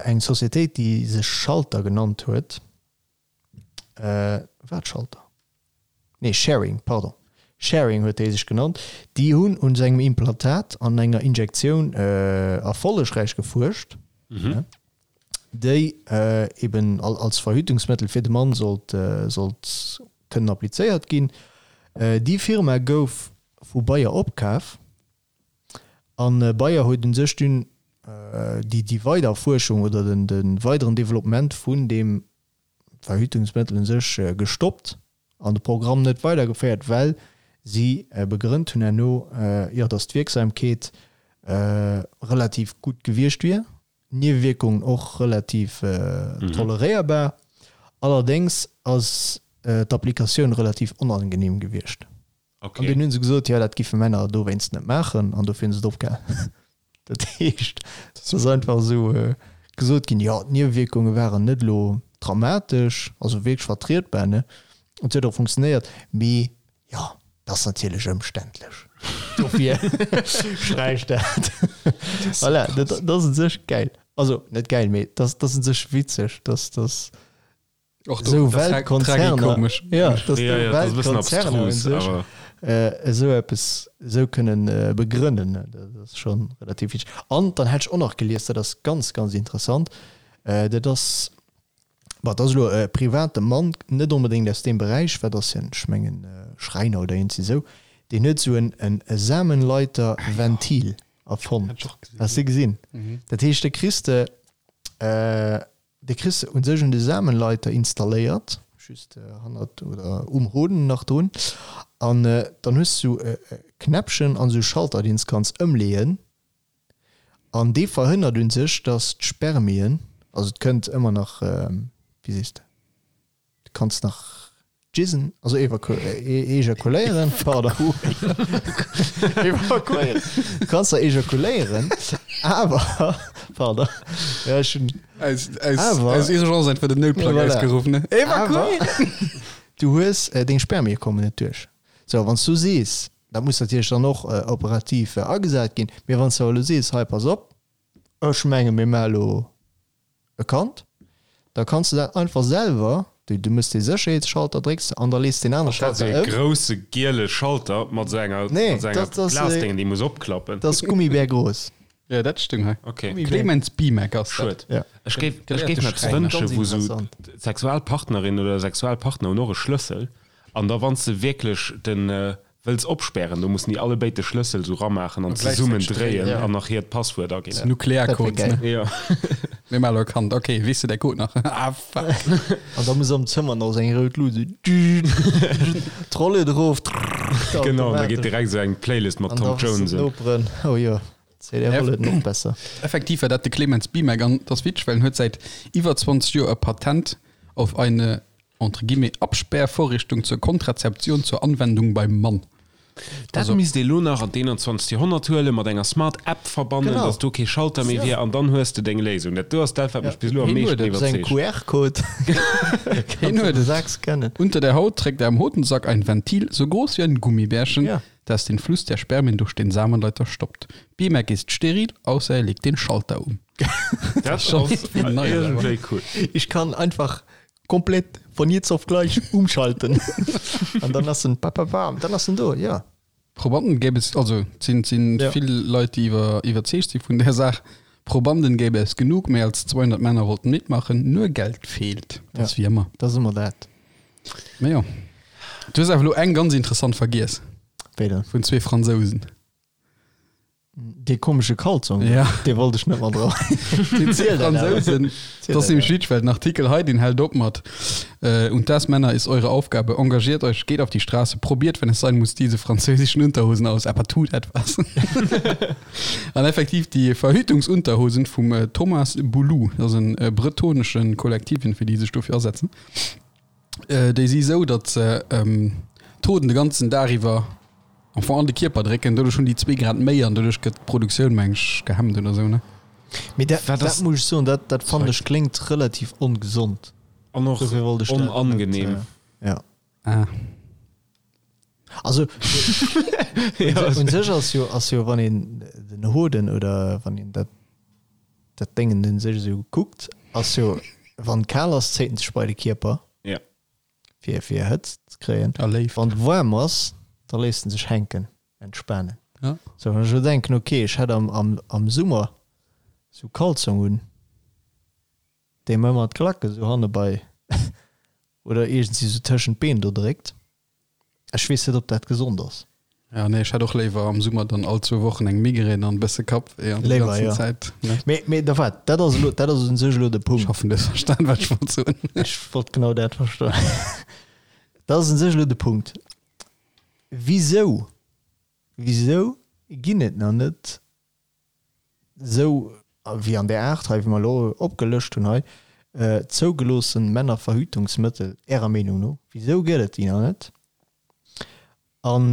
eng Societéit, déi sech Schalter genannt huet, War et Schalter? Nee, Schering, pardon. Schering huet déi sech genannt. Déi hunn un sengem Implantat an enger Injektioun erfollegräich gefuerscht, déi eben als Verhütungsmëttel fir de Mann sollt sollt kënnen applizéiert ginn. Déi Firma gouf vu Bayer opkaf an Bayer huet un sech dunn déi déi weider Fuerschung oder den de weideren Developpement vun deem Verhütungsmëttel un sech gestoppt an de Programm net weidergeféiert, well si begrënnt hunn herno, jo, datt d'Wierksamkeet relativ gutt gewiescht wier, d'Niewewierkungen och relativ toleréierbar. Allerdéngs ass d'Applikatioun relativ onangenehm gewiescht. An dunn hu se gesot, jo, dat giffe Männer dowéinst net maachen an dofir hu se et opgehal. Dat heescht, et ass einfach esou gesot ginn, jo, d'Niewewierkunge waren net elo dramatesch, also wierklech vertrietbar, ne, et huet och funktionéiert, mee jo, et ass natierlech ëmständlech, dofir sträicht dat. Voilà, dat ass u sech gäil, also net gäil, mee dat ass u sech witzeg, dass dass Och do, esou das ist Weltkonzerner, tragikomesch. ja, dass Ja, do ja, das ist e bëssen Weltkonzerner un abstrus, sech awer. esou eppes esou kënnen begrënnen, dat ass scho relativ witzeg. An dann hat ech och nach gelies, dat ass ganz, ganz interessant, dat ass, bon, dat ass elo e private Mann, net onbedéngt aus deem Beräich, wat ass hien, ech mengen Schräiner oder iergendwéi esou, deen huet esou en e Samenleiterventil erfonnt. Has de gesinn? Dat heescht, da kriss de Dee kriss de un sech un de Samenleiter installéiert, just hannert oder um Hoden nach drun, an dann hues du e Knäppchen an esou e Schalter, deen s kanns ëmleeën, an dee verhënnert un sech, dass d'Spermien, also et kënnt ëmmer nach, wéi sees de, du kanns nach Jizzen, also ejakuléieren, pardon. Evakuéieren. Du kanns da ejakuléieren, awer, pardon, ja, ech hunn. Aus, aus, Awer- aus Urgence einfach den Noutplang Voilà. ausgerufen, ne? Awer du hues, deng Spermie kommen net duerch. Sou, wann s du sees, dat muss natierlech dann och operativ agesat ginn, mee wann s du awer elo sees, hei pass op, ech menge mir maache elo e Kand, da kanns de dat einfach selwer, du du mëss dee Sécherheetsschalter, drécks an da lees deen anere Dat ass Schalter e ëm. grousse giele Schalter mat esou enger, Nee, mat esou enger dat ass e, Glasdéngen, déi muss opklappen. dat ass Gummibär grouss. Ja, dat stung hei. Okay. Gummibär. Clemens Bimek ass dat. Schued. Ja. Ech géif, ech Gelehrte géif mer eppes Schräiner. wënschen, Ganz wou esou interessant. d'Sexualpartnerin oder de Sexualpartner hunn och e Schlëssel an da wann s de wierklech den, Wëlls opspären, do mussen déi allebéid de Schlëssel sou ramaachen an zesummen dréien an nach hiert Passwuert aginn. Nuklearcode, ne? Jo. Mir maachen elo e Kand. Ok, weess de däi Code nach? Ah, fuck. An da muss am Zëmmer nach sou eng rout Lut, sou d'Rolle erof, Genau, an da geet direkt sou eng Playlist mat Tom Jones un. Noperen, oh jo, d'CDR huet et nach besser. Effektiv war dat de Clemens Bimek an et ass witzeg, well en huet säit iwwer 20 Joer e Patent auf eine entre guillemets, Absperrvorrichtung zur Kontrazeption zur Anwendung beim Mann. Dat Also- misst ee lo nach an d'21. Joerhonnert huelen, mat enger Smart App verbannen, Genau. dass do kee Schalter méi wier an dann hues de deng Léisung. Dat do ass dat, wat mech bis elo am Hien meeschten huet et. Sou eng iwwerzeegt. QR-Code. Hien huet et. Sack scannen. Unter der Haut trägt er am Hodensack ein Ventil, so groß wie ein Gummibärchen, Ja. das den Fluss der Spermien durch den Samenleiter stoppt. Bimek ist steril, außer er legt den Schalter um. Dat ass schon irgendwie neu, iergendwéi cool. Ich kann einfach komplett von jetzt auf gleich umschalten. An dann ass en papapam, dann ass en do, ja. Probanden gäbe es, also et sinn, sinn Ja. vill Leit, déi iwwer, iwwerzeegt si vun där Saach. Probanden gäbe es genug, méi als 200 Männer wollten mitmachen, nur Geld fehlt. Dat ass Ja. wéi ëmmer. Dat ass ëmmer dat. Mä jo. Du hues awer elo eng ganz interessant vergiess, Wéi dann? vun zwee Fransousen. Dee komesche Kalzong, Ja. dee wollt ech net mat dran. Déi Ziel dat awer. Fransosen, Ziel das dat nämlich awer. witzig, weil den Artikel hei, den hält op mat äh, Und das, Männer, ist eure Aufgabe. Engagiert euch, geht auf die Straße, probiert, wenn es sein muss, diese französischen Unterhosen aus, aber tut etwas. An effektiv die Verhütungsunterhosen vum äh, Thomas Boulou, das ass en äh, bretoneschen Kollektiv, fir déi sech dofir asetzen, äh, déi si sou, datt se ähm, d'Hoden de ganzen Dag iwwer am Fong an de Kierper drécken, doduerch hunn déi zwee Grad méi an doduerch gëtt d'Produktioun, meng ech, gehemmt oder sou, ne? Mee dat, Wat dat ass- muss ech soen, dat, dat fannen ech kléngt relativ ongesond. An och Dofir wollt ech dat net, onangenehm. äh, ja. Ah. Also un sech ass jo, ass jo wann een den Hoden oder wann een dat dat Déngen un sech esou kuckt, ass jo wann kal ass, zéit en sech bei de Kierper. Ja. Fir fir Hëtzt ze kréien. A Léift. Wann waarm ass, da léisst en sech hänken, entspanen. Ja. Sou wann ech elo denken, okay, ech hätt am am am Summer sou Kalzong un, dee mer ëmmer d'Klack esou hanne bei oder iergendwéi sou tëschent d'Been do dréckt. Ech weess net, ob dat gesond ass. Ja, nee, ech hätt och léiwer am Summer dann all zwou Wochen eng Migrän an e bësse Kappwéi an déi Léiwer, ganzen jo. Zäit, ne? Mee, mee da waart, dat ass elo, dat ass un sech elo de Ech Punkt. hoffen, du hues verstan, wat ech wollt soen. Ech wollt genau dat verstoen. Dat ass un sech elo de Punkt. Wisou, wisou ginn et nach net esou wéi an där Aart hei, wéi mer elo opgelëscht hunn hei, zougeloossen Männerverhütungsmëttel, Ärer Meenung no? Wisou gëtt et déi nach net? An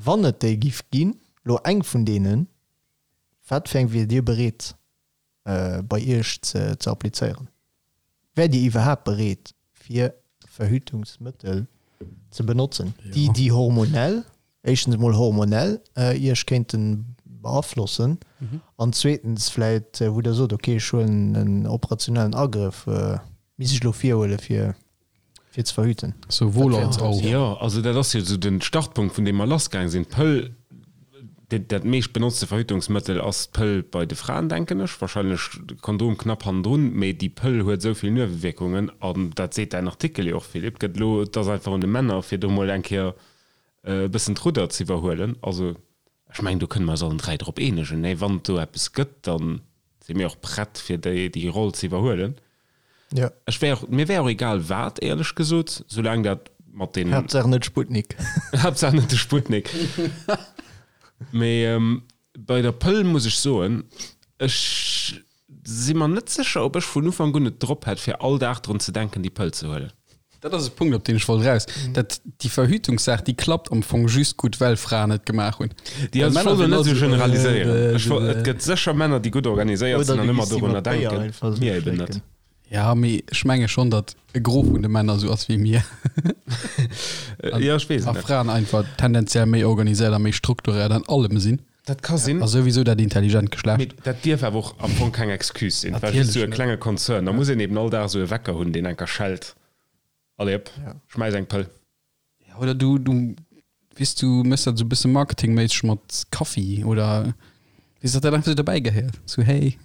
wann et déi giff ginn, elo eng vun deenen, wat fir eng wiert Dir bereet bei Iech ze applizéieren? Wäert Dir iwwerhaapt bereet fir Verhütungsmëttel ze benotzen, déi déi hormonell, éischtens emol hormonell Iech kéinte beaflossen an zweetens vläit wou Der sot, okay ech huelen en operationellen Agrëff, misst ech elo virhuele fir fir ze verhüten. Souwuel als auch. Jo, also dat ass jo esou den Startpunkt, vun deem mer lassgaang sinn. D'Pëll, dat meescht benotzte Verhütungsmëttel ass d'Pëll bei de Fraen, denken ech, wahrscheinlech de Kondom knapp hannendrun, mee déi Pëll huet esou vill Niewewierkungen, an dat seet däin Artikel jo och, Philippe, gëtt elo, et ass einfach un de Männer, fir do mol eng Kéier e bëssen d'Rudder ze iwwerhuelen. Also ech mengen, do kënne mer eis allen 3 drop eenegen, nee, wann et do eppes gëtt, da si mir och prett, fir déi Roll ze iwwerhuelen. Ja. Ech wär och, mir wär och egal wat, éierlech gesot, soulaang dat mat den. Haaptsaach net Sputnik. Haaptsaach net de Sputnik. Mee ähm, bei der Pëll muss ech soen, ech si mer net sécher, ob ech vun Ufank un et drop hätt, fir all Dag drun ze denken, déi Pëll ze huelen. Dat ass e Punkt, op deen ech wollt eraus. Dat, déi Verhütungssaach, déi klappt am Fong just gutt, well Fraen et gemaach hunn. Déi, Well also ech Männer wollt elo sinn net all esou esou, generaliséieren. äh, Ech woll, et gëtt sécher Männer, déi gutt organiséiert Oder sinn du an ëmmer giss déi dorunner mat Béier denken. einfach esou Mir eben net. schlécken. Ja, mee ech menge schonn, datt e Gros vun de Männer esou ass wéi mir. Ja, ech weess et A net. Fraen einfach tendenziell méi organiséiert a méi strukturéiert an allem sinn. Dat ka sinn. A souwisou dat intelligent Geschlecht. Mee dat dierf awer och am Fong keng Excuse sinn. Well just Natierlech esou e net. klenge Konzern, da muss een eben all Dag esou e Wecker hunn, deen enker schellt. Allez hop, schmäiss eng Pëll. Ja, oder du, du, weess du, méchs dat esou e bësse marketingméisseg mat Kaffi oder weess, datt dat einfach esou derbäi gehéiert. Sou, hey.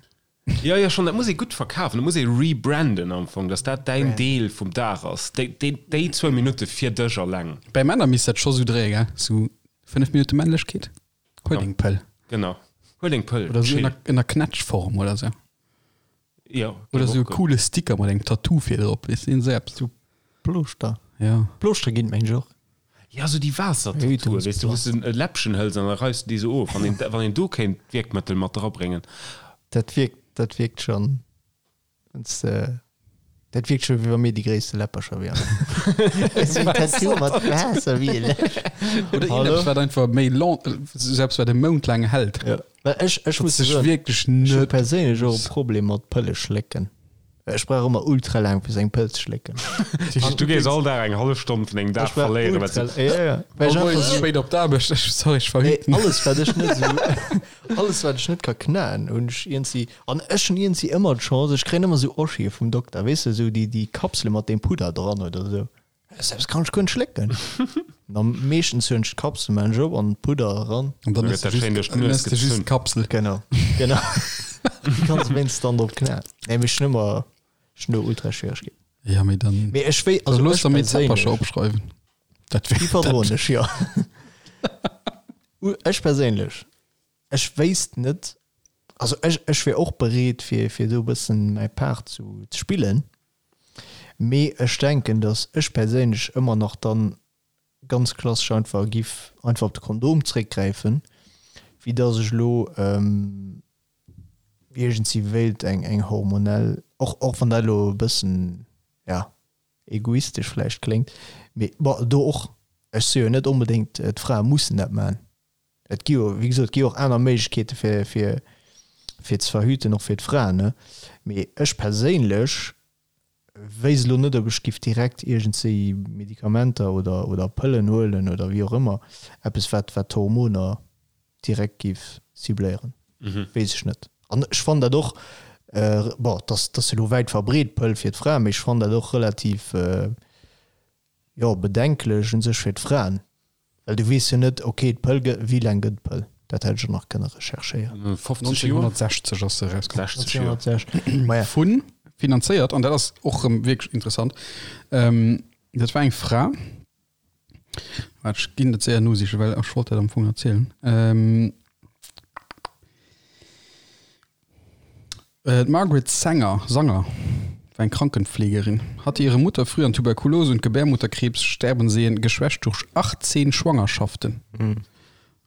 Jo, jo, schonn, dat muss ee gutt verkafen, dat muss ee rebranden am Fong, datt dat däin Deel vum Dag ass, déi, déi, déi zwou Minutte fir dech alleng. Bei Männer misst dat scho sou dréie, gell? Sou 5 Minutte Männlechkeet, huel deng Pëll. Genau, huel deng Pëll, Oder sou chill. ënner, ënner Knätschform oder sou. Jo, Oder géif sou e och goen. coole Sticker mat engem Tattoo vir drop, weess de, esou eppes. Sou Plooschter. Ja. Plooschter ginn et mengen ech och. Ja, sou déi Waassertattoue, weess de, wou s de e Läppchen hëls an da reifs de déi sou of. Wann een, wann een do kéint d'Wierkmëttel mat drabréngen. Dat wierkt, dat wierkt schonn, wann s de, dat wierkt scho wéi wa mir déi gréisste Läppercher wieren. Esou en Tattoo mat Waasser wéi e Läppchen. Oder Hallo? iergendeppes, wat einfach méi long, esou eppes, wat e Mount laang hält. Ja. Well ech, ech Dat muss sech soen, wierklech ech hu net. perséinlech och e Problem mat Pëlle schlécken. Ech brauch ëmmer ultra laang fir seng Pëll ze schlécken. Du gees all Dag eng hallef Stonn vun dengem Dag verléieren, well s du. Ja, ja. Well ech All einfach Moies sou. spéit op d'Aarbecht, ech, sorry, ech Nee, verhüten. alles wat ech net sou, alles wat ech net ka knaen, hunn ech iergendwéi, an ech hunn iergendwéi ëmmer d'Chance, ech kréien ëmmer sou Oschie vum Dokter, weess de, sou déi, déi Kapsele mat deem Pudder dran oder sou. Selbst kann ech guer net schlécken. An meeschtens hunn ech d'Kapsel, maan ech op an Pudder eran. An dann Da ëss gëtt de dat schéin just, duerch dann d'Nues ëss de just gezunn. d'Kapsel. Genau, genau. Du kanns wéinst dann drop knaen. Nee, mee ech hunn ëmmer, ech hunn do ultra Schwieregkeeten. Ja, mee dann. Mee ech wéi, Also also looss ech der méi Zäppercher perséinlech, opschreiwen. Dat déi wär, verdroen dat, ech, jo. Ech perséinlech, ech wéisst net, also ech, ech wier och bereet fir, fir do e bëssen mäi Part zu, ze spillen. Mee ech denken, datt ech perséinlech ëmmer nach dann ganz klassesch einfach giff einfach op de Kondom zréckgräifen, wéi datt ech elo iergendwéi wéilt eng eng hormonell, och och wann dat elo e bëssen, ja, egoistesch vläicht kléngt, mee bon, do och, ech soe jo net onbedéngt, d'Frae mussen dat maachen. Et gi jo, wéi gesot, et gi jo och aner Méiglechkeete fir, fir. fir ze verhüten, och fir d'Fraen, ne? Mee ech perséinlech wéisst elo net, ob ech giff direkt iergendzéi Medikamenter oder oder Pëllen huelen oder wéi och ëmmer, eppes wat wat d'Hormoner direkt giff cibléieren, weess ech net. An ech fannen dat och, bon, dass dass elo wäit verbreet d'Pëll fir d'Fraen, mee ech fannen dat och relativ, jo, bedenklech un sech fir d'Fraen, Well du weess jo net, ok, d'Pëll gëtt, wéi laang gëtt d'Pëll? Dat hätt ech och nach kënne recherchéieren. 50 Joer? 1960 ass se erauskomm. 60 Joer. 1960, maja. Vun, finanzéiert, an dat ass och erëm wierklech interessant, dat war eng Fra, waart, ech ginn dat séier nosichen, well ech wollt dat am Fong erzielen. D'Margaret Sanger, Sanger war eng Krankenpflegerin, hatte ihre Mutter früh an Tuberkulose und Gebärmutterkrebs sterben sehen, geschwächt durch 18 Schwangerschaften.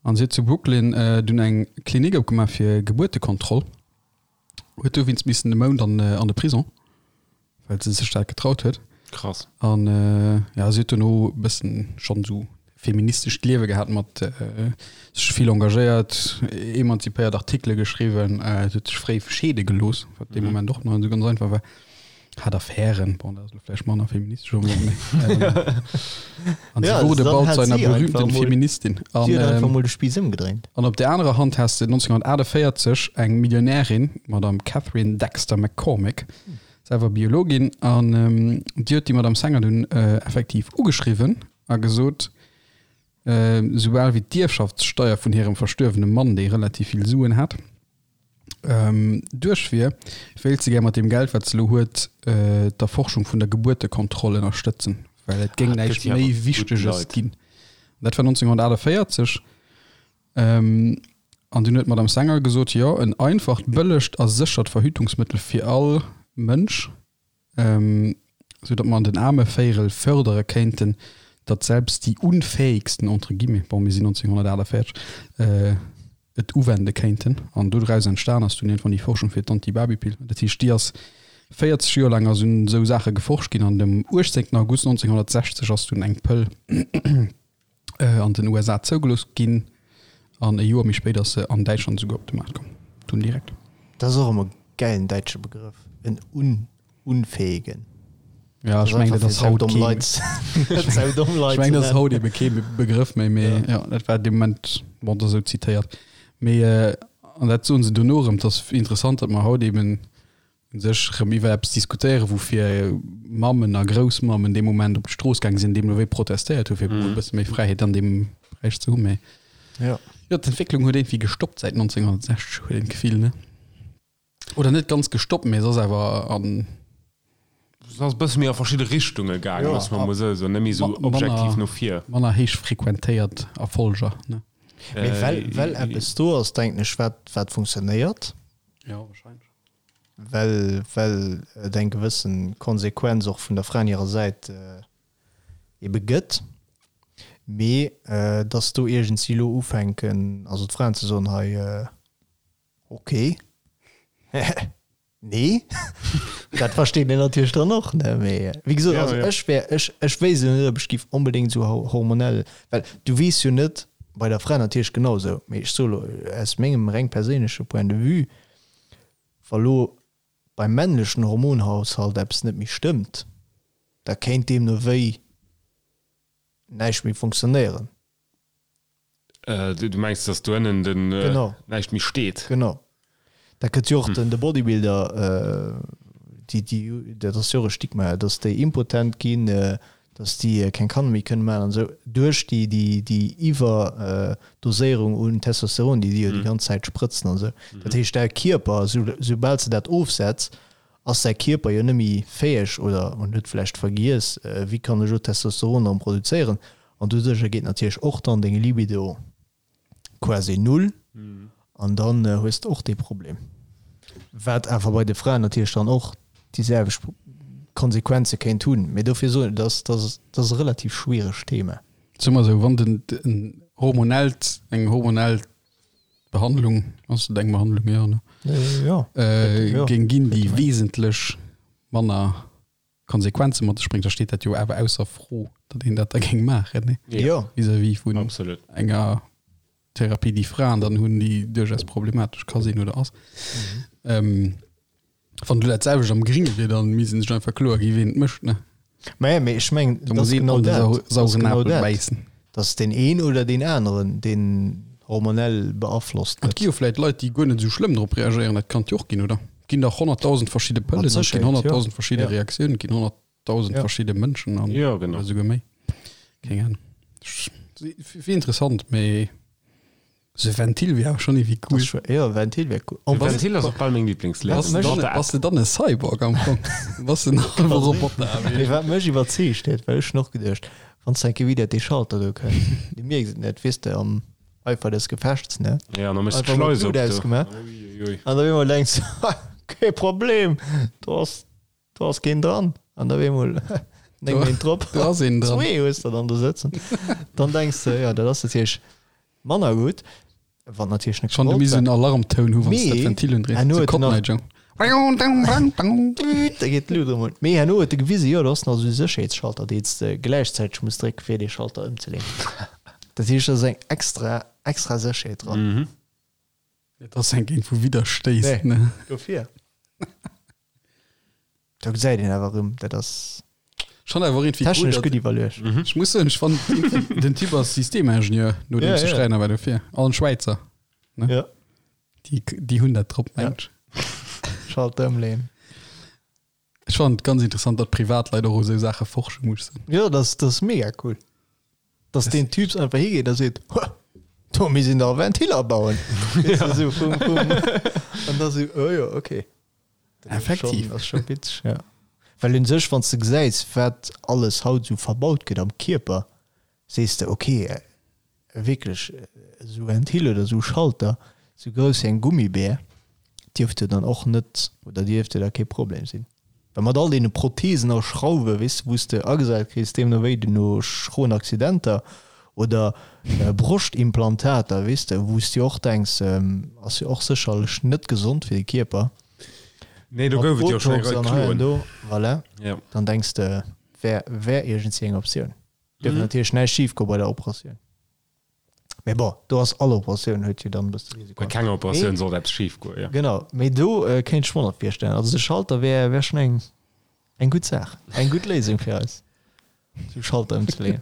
An si huet zu Brooklyn dunn eng Klinik opgemaach fir Gebuertekontroll, huet dowéinst missen e Mount an an de Prison. well se sech dat getraut huet. Krass. An ja, si huet dono e bëssen schonn esou feministescht Liewe gehat mat sech vill engagéiert, emanzipéiert Artikele geschriwwen, se huet sech fréi scheede gelooss, wat dee Moment och nach net esou ganz einfach war, hat Affären, bon dat ass elo vläicht manner feministesch onbedéngt, mee an sie wurde bald zu einer berühmten Feministin. An, si huet einfach mol de Spiiss ëmgedréint. An op der anerer Hand has de 1948 eng Millionärin, d'Madame Catherine Dexter McCormick, selwer Biologin, an déi huet déi Madame Sanger dunn effektiv ugeschriwwen a gesot, soubal wéi d'Ierfschaftssteier vun hirem verstuerwene Mann, dee relativ vill Suen hat, duerch wier, wéilt se gär mat deem Geld, wat se elo huet, d'Erforschung vun der Gebuertekontroll ënnerstëtzen, well et géing näischt méi Wichteges ginn. Dat war 1948. An dunn huet d'Madame Sanger gesot, Jo, en einfacht, bëllegt a séchert Verhütungsmëttel fir all Mënsch, sou datt mer an den aarme Véirel fördere kéinten, datt selbst die Unfähigsten, entre guillemets, bon, mir sinn 1948, et uwende kéinten. An dodraus entstan ass dunn iergendwann déi Forschung fir d'Antibabypill. Dat heescht, déi ass 40 Joer laang ass un esou Saache geforscht ginn an dem 18 August 1960 ass dunn eng Pëll an den USA zougelooss ginn an e Joer méi spéit ass se an Däitschland esouguer op de Maart komm. Dunn direkt. Dat ass och ëmmer e gäilen däitsche Begrëff, en un unfähigen. Ja, ech mengen dat ass haut kee Ech mengen dat ass haut ebe kee Begrëff méi, mee jo, dat war dee Moment, bon, dat ass esou zitéiert. Mee an dat soen se dono erëm, 't ass interessant, datt mer haut eben u sech erëm iwwer eppes diskutéieren, woufir Mammen a Groussmammen dee Moment op d'Strooss gaange sinn, deemno wéi protestéiert hu fir e bësse méi Fräiheet an deem Beräich ze hunn. Mee jo, d'Entwécklung huet iergendwéi gestoppt säit 1960, huet een d'Gefill, ne? Oder net ganz gestoppt, mee se ass awer an. Se ass e bësse méi a verschidde Richtunge gaangen, loosse mer emol esou soen, net méi esou objektiv no vir. Manner héich frequentéiert Erfolger, ne? Mee well, well eppes do ass, denken ech, wat, wat funktionéiert. Jo, wahrscheinlech. Well, well et eng gewëssen Konsequenz och vun der Fraen hirer Säit ebe gëtt, mee dass do iergendsi elo ufänken, also d'Fraen ze soen, hei, ok, nee, dat versteet een natierlech dann och, ne? Mee wéi gesot, also ech wär, ech, ech wéisst elo net, ob ech géif onbedéngt esou hormonell, well du weess jo net, bei der Fra natierlech genau esou, mee ech soe elo aus mengem reng perséinleche Point de vue, Wa lo beim männlechen Hormonhaushalt eppes net méi stëmmt, da kéint deemno wéi näischt méi funktionéieren. Du mengs, datt do ënnen den näischt méi steet? Genau. Dat gëtt jo och den de Bodybuilder, déi, déi, dat ass jo och e Stigma, datt déi impotent ginn, dass déi keng Kanner méi kënne maachen an esou, duerch déi, déi, déi Iwwerdoséierung un Testosteron, déi déi jo déi ganz Zäit sprëtzen an esou. Dat heescht, däi Kierper, sou, soubal s de dat ofsetz, ass däi Kierper jo net méi fäeg oder en huet vläicht vergiess, wéi kann ech elo Testosteron erëm produzéieren. An doduercher geet natierlech och dann deng Libido quasi null an dann hues de och dee Problem. Wat awer bei de Fraen natierlech dann och déi selwecht Konsequenze kéint hunn. Mee dofir soen ech, dat ass, dat ass e relativ schwieregt Thema. Soe mer esou, wann den en hormonellt, eng hormonell Behandlung, ass et eng Behandlung, jo, ne? Jo, jo, géing ginn, déi wesentlech manner Konsequenze mat sech bréngt, da steet dat jo awer ausser Fro, datt een dat da géing maachen, ne? Jo. Vis-à-vis vun Absolut. enger. Therapie, déi Fraen dann hunn, déi duerchaus problematesch ka sinn oder ass. Ähm, wann du dat selwecht am Gringe wier, dann misst sech einfach kloer gi ween et mécht ne. Mä mee ech mengen, Da muss een an de sauren genau Apel dat, bäissen. dass deen een oder deen aneren, deen hormonell beaflosst Et gi gëtt. jo vläit Leit, déi guer net esou schlëmm drop reagéieren, dat kann et jo och ginn, oder? Et ginn dach 100.000 verschidde Mat Pëllen, et ginn Sécherheet, jo. 100.000 verschidde Ja. Reaktiounen, et ginn 100.000 Ja. verschidde Mënschen an Jo, genau. oder souguer méi. Keng Ahnung. Wier interessant, mee sou e Ventil wier awer schonn iergendwéi Das cool. ist schon, ja, Ventil wär cool. De Ventil ass och bal meng Lieblingsléisung. Bass de dann, bass de dann e Cyborg am Fong? Bass de en halwe Roboter? Mee wat mech iwwerzeegt huet, well ech hunn och geduecht, wann s de eng Kéier wieder dee Schalter do kënnt, du mierks et net, weess de, am Eifer des Gefechts, ne? Ja, an da méchs de Einfach mol d'Schleis op d'Lut do. ausgemaach. Uiuiui. An da op eemol denks de, kee Problem, do ass, do ass keen dran. An da op eemol 9 Méint drop, Do ass een dran. zwee hues de dann do sëtzen. Dann denks de, jo, dat ass natierlech manner gutt, wann natierlech net Schonn du gewollt misst war. en Alarmtoun hu wann s de dat Mee Ventil undréis. herno Sou huet en Cotton nach- Eye Joe. Da geet d'Lut erëm un. Mee herno huet e gewisen, jo, do ass nach esou e Sécherheetsschalter, deen s de gläichzäiteg muss drécken, fir dee Schalter ëmzeleeën. Dat heescht, do ass eng extra, extra Sécherheet dran. Et ass eng géint wou widderstéisst, Nee. ne? Dofir. Do gesäit een awer erëm, dat ass Schon awer irgendwie cool, technesch datt- gutt iwwerluecht. Ech muss soen, ech fand irgendwie- den Typ ass Systemingenieur, nodeems Ja, de ja. Schräiner war dofir. An Schwäizer. Ja. Déi, déi hunn dat drop, Ja. mengen ech. Schalter ëmleeën. Ech fand et ganz interessant, datt Privatleit och u sou Saache forsche mussen. Jo, dat ass mega cool. Dass deen Typs einfach higeet a seet, Huh, do misst een dach e Ventil abauen. Weess de, sou vum, vum. An da sou, oh jo, okay. Dat ass Effektiv. schon- ass scho witzeg, ja. Well un sech, wann s de gesäis, wat alles haut sou verbaut gëtt am Kierper, sees de, okay, wierklech esou Ventil oder esou Schalter, esou grouss wéi eng Gummibär, dierft jo dann och net oder dierft jo da kee Problem sinn. Well mat all deene Prothesen a Schrauwe, weess de, wou s de agesat kriss, deemno wéi du no schroen Accidenter oder Broschtimplantater, weess de, wou s de och denks, ass jo och sécherlech net gesond fir de Kierper. Nee, do Mat gouf et jo schonn eng Botox Rei an hei an Kloen. do, voilà, Ja. dann denks de, wär, wär iergendwéi eng Optioun. Dierf natierlech näischt schif goe bei der Operatioun. Mee bon, do ass all Operatioun huet jo dann e bësse Risiko. Bei kenger Operatioun sollt eppes schif goen, jo. Genau, mee do kéint ech mer dat virstellen. Also de Schalter wär, wär schonn eng, eng gutt Saach, eng gutt Léisung fir eis, sou Schalter ëmzeleeën.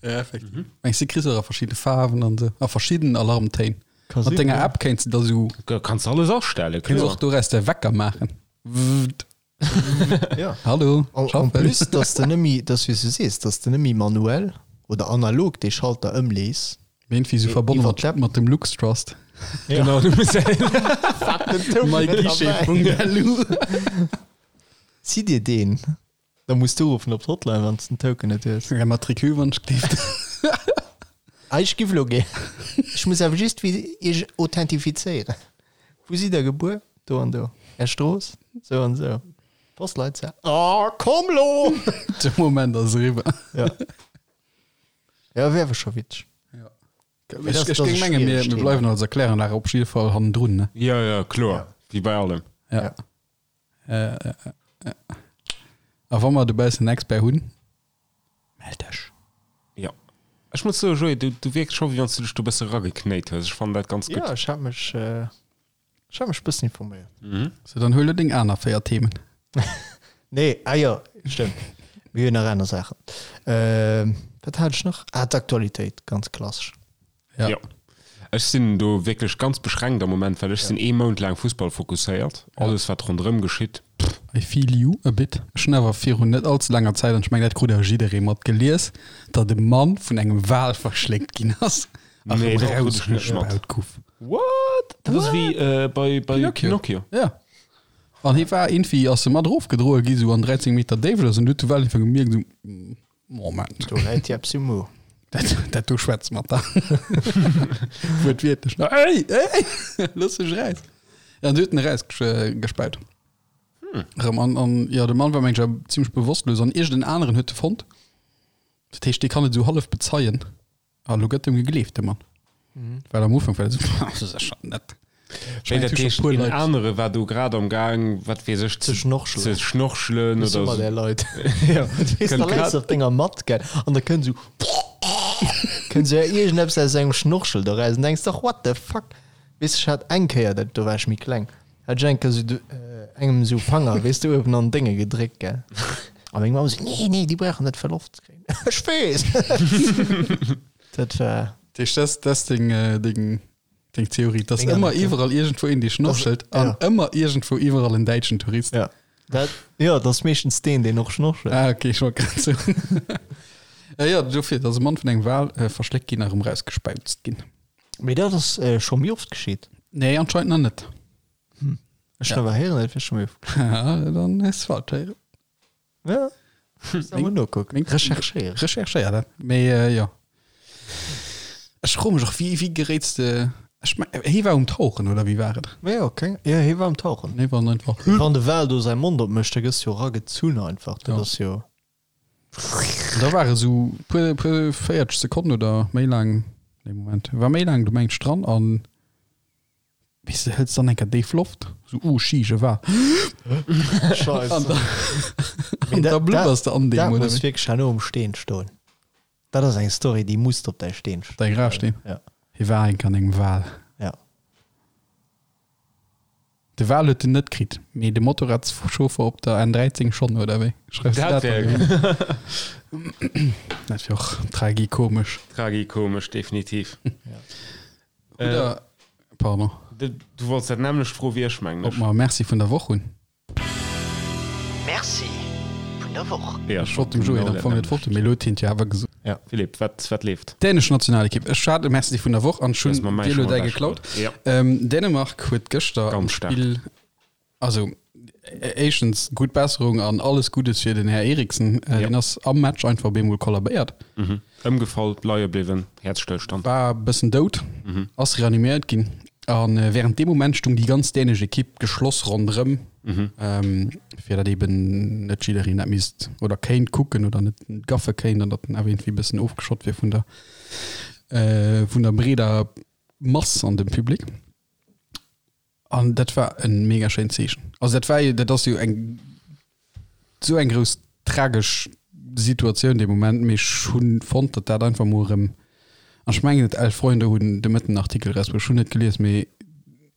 Ja, effektiv. Mengs du, kriss och a verschidde Faarwen an sou, a verschidden Alarmtéin? Ka Mat sinn, denger ja. App kéints de da sou, Kanns de alles astellen, kéints kloer. och doraus de Wecker maachen. Wwwt. Ja. Hallo, En, en schaffen. plus, dass de nëmmi, dass wéi s du sees, dass de nëmmi manuell oder analog dee Schalter ëmlees. Mee irgendwie so Mee verbonnen iwwer mat, d'App. mat dem LuxTrust. Ja. Genau, du muss myguichet.lu. Zitt dir deen, da muss du uruffen op d'Hotline, wann s den Token net hues. Ja, Matricule, wann ech gleeft. Ah, ech giff elo gär. Ech muss awer just wéi iech authentifizéieren. Wou sidd der gebuer? Do an do. Är Strooss? Sou an sou. Postleitzahl? Oh, komm lo! De Moment ass eriwwer. Ja. Ja, wär awer scho witzeg. Ja. Mee Ech, das- ech das géing ass mengen, mir, schwiereg mir Thema. bleiwen als Erkläranlage op jidde Fall hannendrun, ne? Ja, ja, kloer. Wéi bei allem. Ja. Ja. Äh, äh, äh. A wa mer dobaussen en Expert hunn, mell dech. Ja. Ech muss soen, Joé, du, du wierks scho, wéi wann s du dech do e bësse rageknéit hues. Ech fannen dat ganz gutt. Ja, ech hat mech, äh, ech hat mech e bëssen informéiert. Mhm. So, dann huel du deng aner 4 Themen. Nee, ah jo, stëmmt. Mir hunn nach aner Saachen. Ähm, wat hat ech nach? Ah, d'Aktualitéit, ganz klassesch. Ja. Ja. Ech sinn do wierklech ganz beschränkt am Moment, well ech sinn ee Mount laang Fussball fokusséiert. Alles wat ronderëm geschitt, pff. I feel you a bit. Ech hunn awer virun net allze laanger Zäit, an ech mengen dat krut awer jidderee mat, gelies, datt e Mann vun engem Wal verschléckt ginn ass a Nee, erëm dat krut ech net mat. rausgespaut gouf. What? Dat ass wéi bei Pinocchio. Pinocchio. Ja. An hie war iergendwéi, ass e mat erofgedroe gi sou an 13 Meter Déift oder sou, an du huet de Wal einfach gemierkt sou, Moment. Do läit Jeps um Mo. Dat, dat do schwätzt mat der. Wuertwiertlech. Ey, ey, looss mech raus. Ja, an du huet en erausgespäut. Erëm an, an ja, de Mann war meng ech awer zimmlech bewosstlos an iergend en aneren huet e fonnt. Dat heescht, dee kann et esou hallef bezeien. A lo gëtt em gegleeft, de Mann. Well am Ufank war dat esou, dat ass ja schon net. Ech Wéi mengen, dat et hu scho heescht, puer een Leit. anere war do grad am Gaang, wat weess ech, Ze schnorchelen. ze schnorchelen Das oder immer so. der Leit. Ja, Wees, kënnt da läis grad du op denger Matt, gell, an da kënnt esou. Kënnt sou iergendeppes aus sengem Schnorchel do raus an denks dach, what the fuck? Weess ech hat eng Kéier, dat do war ech méi kleng, hat ech eng Kéier sou engem sou Fanger, weess de, uewen an Dénge gedréckt, gell? A meng Mamm sou, nee, nee, déi brauchen net fir Loft ze kréien. Ech weess! Dat war. Dat heescht, dat ass deng, deng, deng Theorie, dass Meng ëmmer Anekdot. iwwerall iergendwou een, dee schnorchelt an ja. ëmmer iergendwou iwwerall en däitschen Tourist. Ja. Dat, jo, dat ass meeschtens deen, deen och schnorchelt. Ah, okay, ech wollt grad soen. Äh, jo, dofir, dass e Mann vun engem Wal äh, verschléckt ginn a erëm rausgespäuzt ginn. Mee dat ass scho méi oft geschitt. Nee, anscheinend nach net. Ech hunn awer héieren, et wier scho méi oft geschitt. Haha, dann hues de falsch héieren. Ja, muss da mol nokucken. Recherchéieren. Recherchéier dat. Mee äh, jo. Ech froe mech och, wéi, wéi geréits de. Ech meng, hie war um Tauchen, oder wéi war et? Ja, keng, ja, hie war um Tauchen. Hie war einfach. Wann de Wal do säi Mond opmécht, da gëss du jo eragezunn einfach. Dat Ja. ass jo. Da war e sou puer, puer 40 Sekonnen oder méi laang, nee Moment, war méi laang do mengt ech dran an weess de, hëls dann eng Kéier déif Loft, sou oh sheesh e war Scheiße. an da, an da blubbers de an deem, Dat oder muss wéi? wierklech herno um Steen stoen. Dat ass eng Story, déi muss op däi Steen stoen. Däi Grafsteen? Ja. Hie war eng Kéier an engem Wal. Ja. De Wal huet en net kritt, mee de Motorradschauffer op der N13 schonn, oder wéi? Schreifs du Dat dat wär dann? Dat wär och tragikomesch. Tragikomesch, definitiv. Oder, pardon. Du wollts dat nämmlecht froe wéi ech, mengen Ob ech. mer Merci vun der Woch hunn? Merci vun der Woch. Ja, Ech wollt dem Joé am Fong net Wort, mee elo huet hien et jo awer gesot. Ja. Philippe, wat, wat leeft? Dänesch Nationalekipp. Ech hat e Merci vun der Woch an ech Du hues hunn mer mäi dir elo schon däi ewech geklaut. geholl. Ja. Ähm, Dänemark huet gëschter am Ganz stark. Spill, also éischtens gutt Besserung an alles Guddes fir den Här Eriksen. Äh, Ja. Deen ass am Match einfach op eemol kollabéiert. Mhm. Ëmgefall, leie bliwwen, Häerzstëllstand. War e bëssen dout, ass reaniméiert ginn. An während deem Moment stung déi ganz dänesch Ekipp geschloss ronderëm, fir datt eben net jiddereen dat misst oder kéint kucken oder net gaffe kéint an datt en awer iergendwéi e bëssen ofgeschott wier vun der, vun der breeder Mass an dem Public. An dat war e mega schéint Zeechen. Also dat war jo, dat ass jo eng esou eng grouss tragesch Situatioun dee Moment, mee ech hunn fonnt, datt dat einfach mol erëm, an ech mengen et 11 Freunde hunn de Mëtten en Artikel erausbruecht, ech hunn net gelies, mee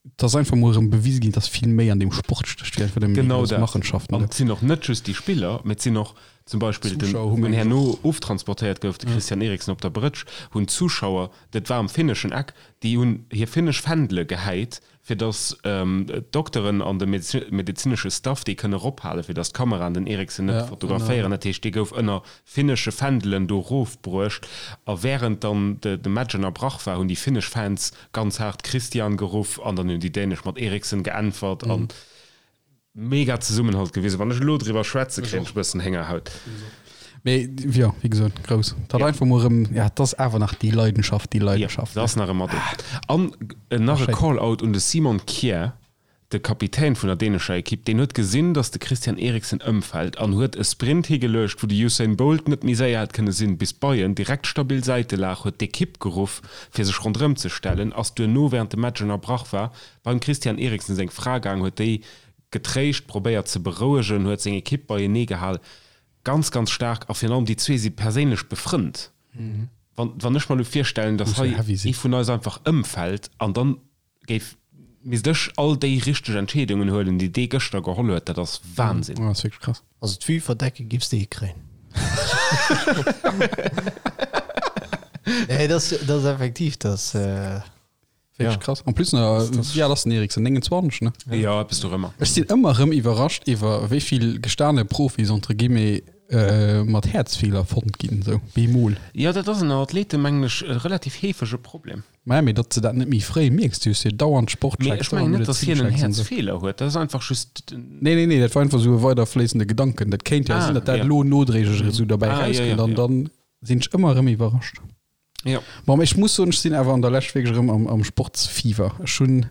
et ass einfach mol erëm bewise ginn, datt vill méi an deem Sport stécht wéi einfach nëmmen déi Genau grouss dat. Machenschaften An do. et sinn och net just déi Spiller, mee et sinn och zum Beispill den, Zuschauer hu wou meng ech herno och. oftransportéiert gouf, de Christian Eriksen op der Brëtsch, hunn d'Zuschauer, dat war am finneschen Eck, déi hunn hir finnesch Fändele gehäit, fir datt d'Dokteren an de medezinesche Staff dee kënne erophalen, fir datt d'Kameraen den Eriksen net fotograféieren. Dat heescht, dee gouf ënner finnesche Fändelen do erofbruecht. A wärend dann de Match ënnerbrach war, hunn déi finnesch Fans ganz haart Christian geruff an dann hunn déi dänesch mat Eriksen geäntwert. An Mega Zesummenhalt gewisen. Wann ech elo driwwer schwätzen, kréien ech e bëssen Héngerhaut. Mee jo, wéi gesot, grouss. Dat einfach mol erëm, ja, et ass awer nach déi Leidenschaft, déi Leidenschaft. Ja, dat ass nach ëmmer do. An nach e Call-out un de Simon Kjær, de Kapitän vun der dänescher Ekipp. Deen huet gesinn, datt de Christian Eriksen ëmfält an huet e Sprint higeluecht, wou de Usain Bolt net méi séier hätt kënne sinn, bis bei en direkt stabil Säitelag, huet d'Ekipp geruff, fir sech ronderëm ze stellen, ass duerno, wärend de Match ënnerbrach war, Beim Christian Eriksen seng Fra gaang, huet déi getréischt, probéiert ze berouegen, huet seng Ekipp beienee gehal. Ganz, ganz staark. A virun allem déi zwee si perséinlech befrënnt. Wann, wann ech mer elo virstellen, datt Muss jo hei heavy sinn. ee vun eis einfach ëmfält an dann géif, misst ech all déi richteg Entscheedungen huelen, déi dee gëschter geholl huet, dat ass Wahnsinn. Dat ass wierklech krass. Also d'Vue verdecke giffs de hikréien. Nee, dat ass, dat ass effektiv, dat. Wirklich Ja. krass. En plus, na, wéi al ass den Eriksen? 29, ne? Jo, eppes dorëmmer. Ech sinn ëmmer erëm iwwerrascht iwwer wéi vill gestane Profis entre guillemets äh, mat Häerzfeeler fonnt ginn, sou bemol. Jo, dat ass ënner Athleten, mengen ech, e relativ heefege Problem. Maja, mee datt s de dat net méi fréi mierks, du hues jo dauernd Mee Sportchecks, ech mengen dauernd net, datt hien en Medezinchecks an sou. Häerzfeeler huet. Dat ass einfach just den. Nee, nee, nee, dat war einfach sou e weiderfléissende Gedanken. Dat kéint jo Ah, sinn, datt dat ja. elo nodréiglech esou derbäi Ah, ja, rauskënnt ja, an ja. dann sinn ech ëmmer erëm iwwerrascht. Ja. Bon, mee ech muss soen, ech sinn awer an der Lescht wierklech erëm am, am Sportsfiewer. Ech hunn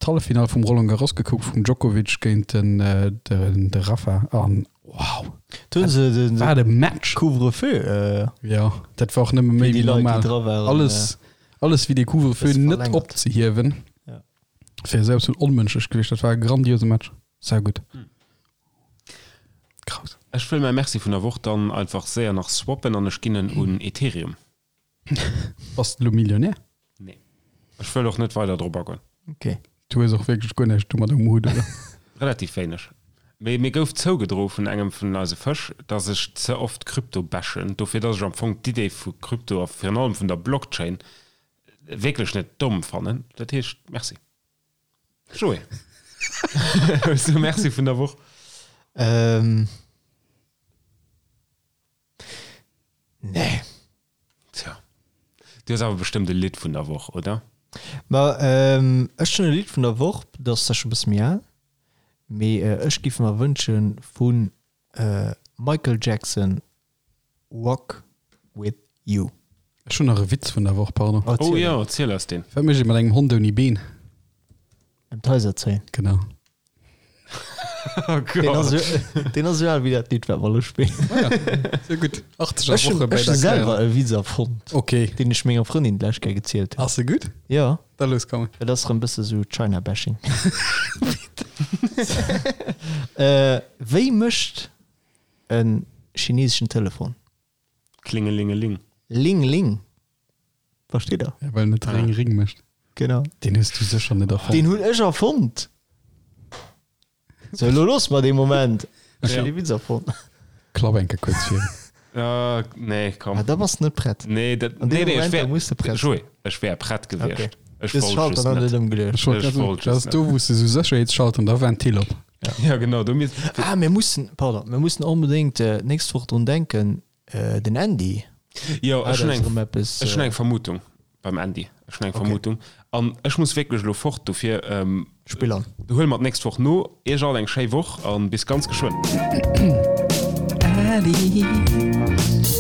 d'Halleffinall vum Roland Garros gekuckt, vum Djokovic géint den, äh, den, de Rafa an wow, Do hunn se den wat e Match! Couvre-feu, äh, Ja, dat war och nëmme méi fir déi wéi Leit, déi normal. dra waren. Alles, alles wéi dee Couvre-feu Bësse net verlängert. opzehiewen, Ja. wär esou absolut onmënschlech gewiescht. Dat war e grandiose Match. Saugutt. Krass. Ech wëll mäi Merci vun der Woch dann einfach séier nach swappen an ech ginn en un Ethereum. Bass de lo Millionär? Nee. Ech wëll och net weider drop agoen. Ok. Du hues och wierklech guer näischt domat um Hutt, oder? Relativ wéineg. Mee mir gouf zougedroe vun engem vun eise Fësch, dass ech ze oft Krypto bashen, dofir dass ech am Fong d'Idee vu Krypto a virun allem vun der Blockchain wierklech net domm fannen. Dat heescht, Merci. Joé, hues du e Merci vun der Woch? Ähm. Nee. Tja. Du hues awer bestëmmt e Lidd vun der Woch, oder? Ma ech hunn e Lidd vun der Woch, dat ass zwar scho e bësse méi al, mee ech géif mer wënsche vu Michael Jackson Walk With You. Ech hunn nach e Witz vun der Woch, pardon. Oh jo, erziel eis deen. Wat mécht ee mat engem Hond ouni Been? Ëm d'Haiser zéien. Genau. Oh Deen ass Gott. jo, deen ass jo al wéi dat Lidd, wat mer elo spillen. Ah ja, sehr gutt. 80er Ech hunn Woche bei ech hu der selwer Claire. e Witz erfonnt, Okay. deen ech menger Frëndin d'lescht Kéier gezielt hunn. Ass e gutt? Jo, Da los, komm. et ass rëm bësse sou China-Bashing. Äh, wéi mécht e chineseschen Telefon? Klingelingeling. Ling Ling. Versteet der? Ja, well en net Ring Ring mécht. Genau. Deen hues du sécher net erfonnt. Deen hunn ech erfonnt. So, elo looss mer dee Moment. Ech hunn dee Witz erfonnt. Klapp eng Kéier kuerz vir. Uh, nee, komm. Ah, da bass de net prett. Nee, dat, An nee, deem nee, ech Moment, wär, da muss de prett Joé, ech wär prett gewiescht. Okay. Ech Des wollt Schalter just dann net. net ëmgeluecht. Ech wollt Ech grad soen, wollt dat just ass do, wou s de sou Sécherheetsschalter an da Ventil op. Ja, genau, do misst. Ah, mir mussen, pardon, mir mussen onbedéngt äh, d'nächst Woch drun denken, äh, den Andy. Jo, Ah, ech hunn dat ass eng, erëm eppes, ech hunn äh, eng Vermutung beim Andy. Ech hunn eng Okay. Vermutung. An ech muss wierklech elo fort, dofir ähm, Spill an. huele mer d'nächst Woch no. Iech all eng schéi Woch an bis ganz geschwënn. Adi.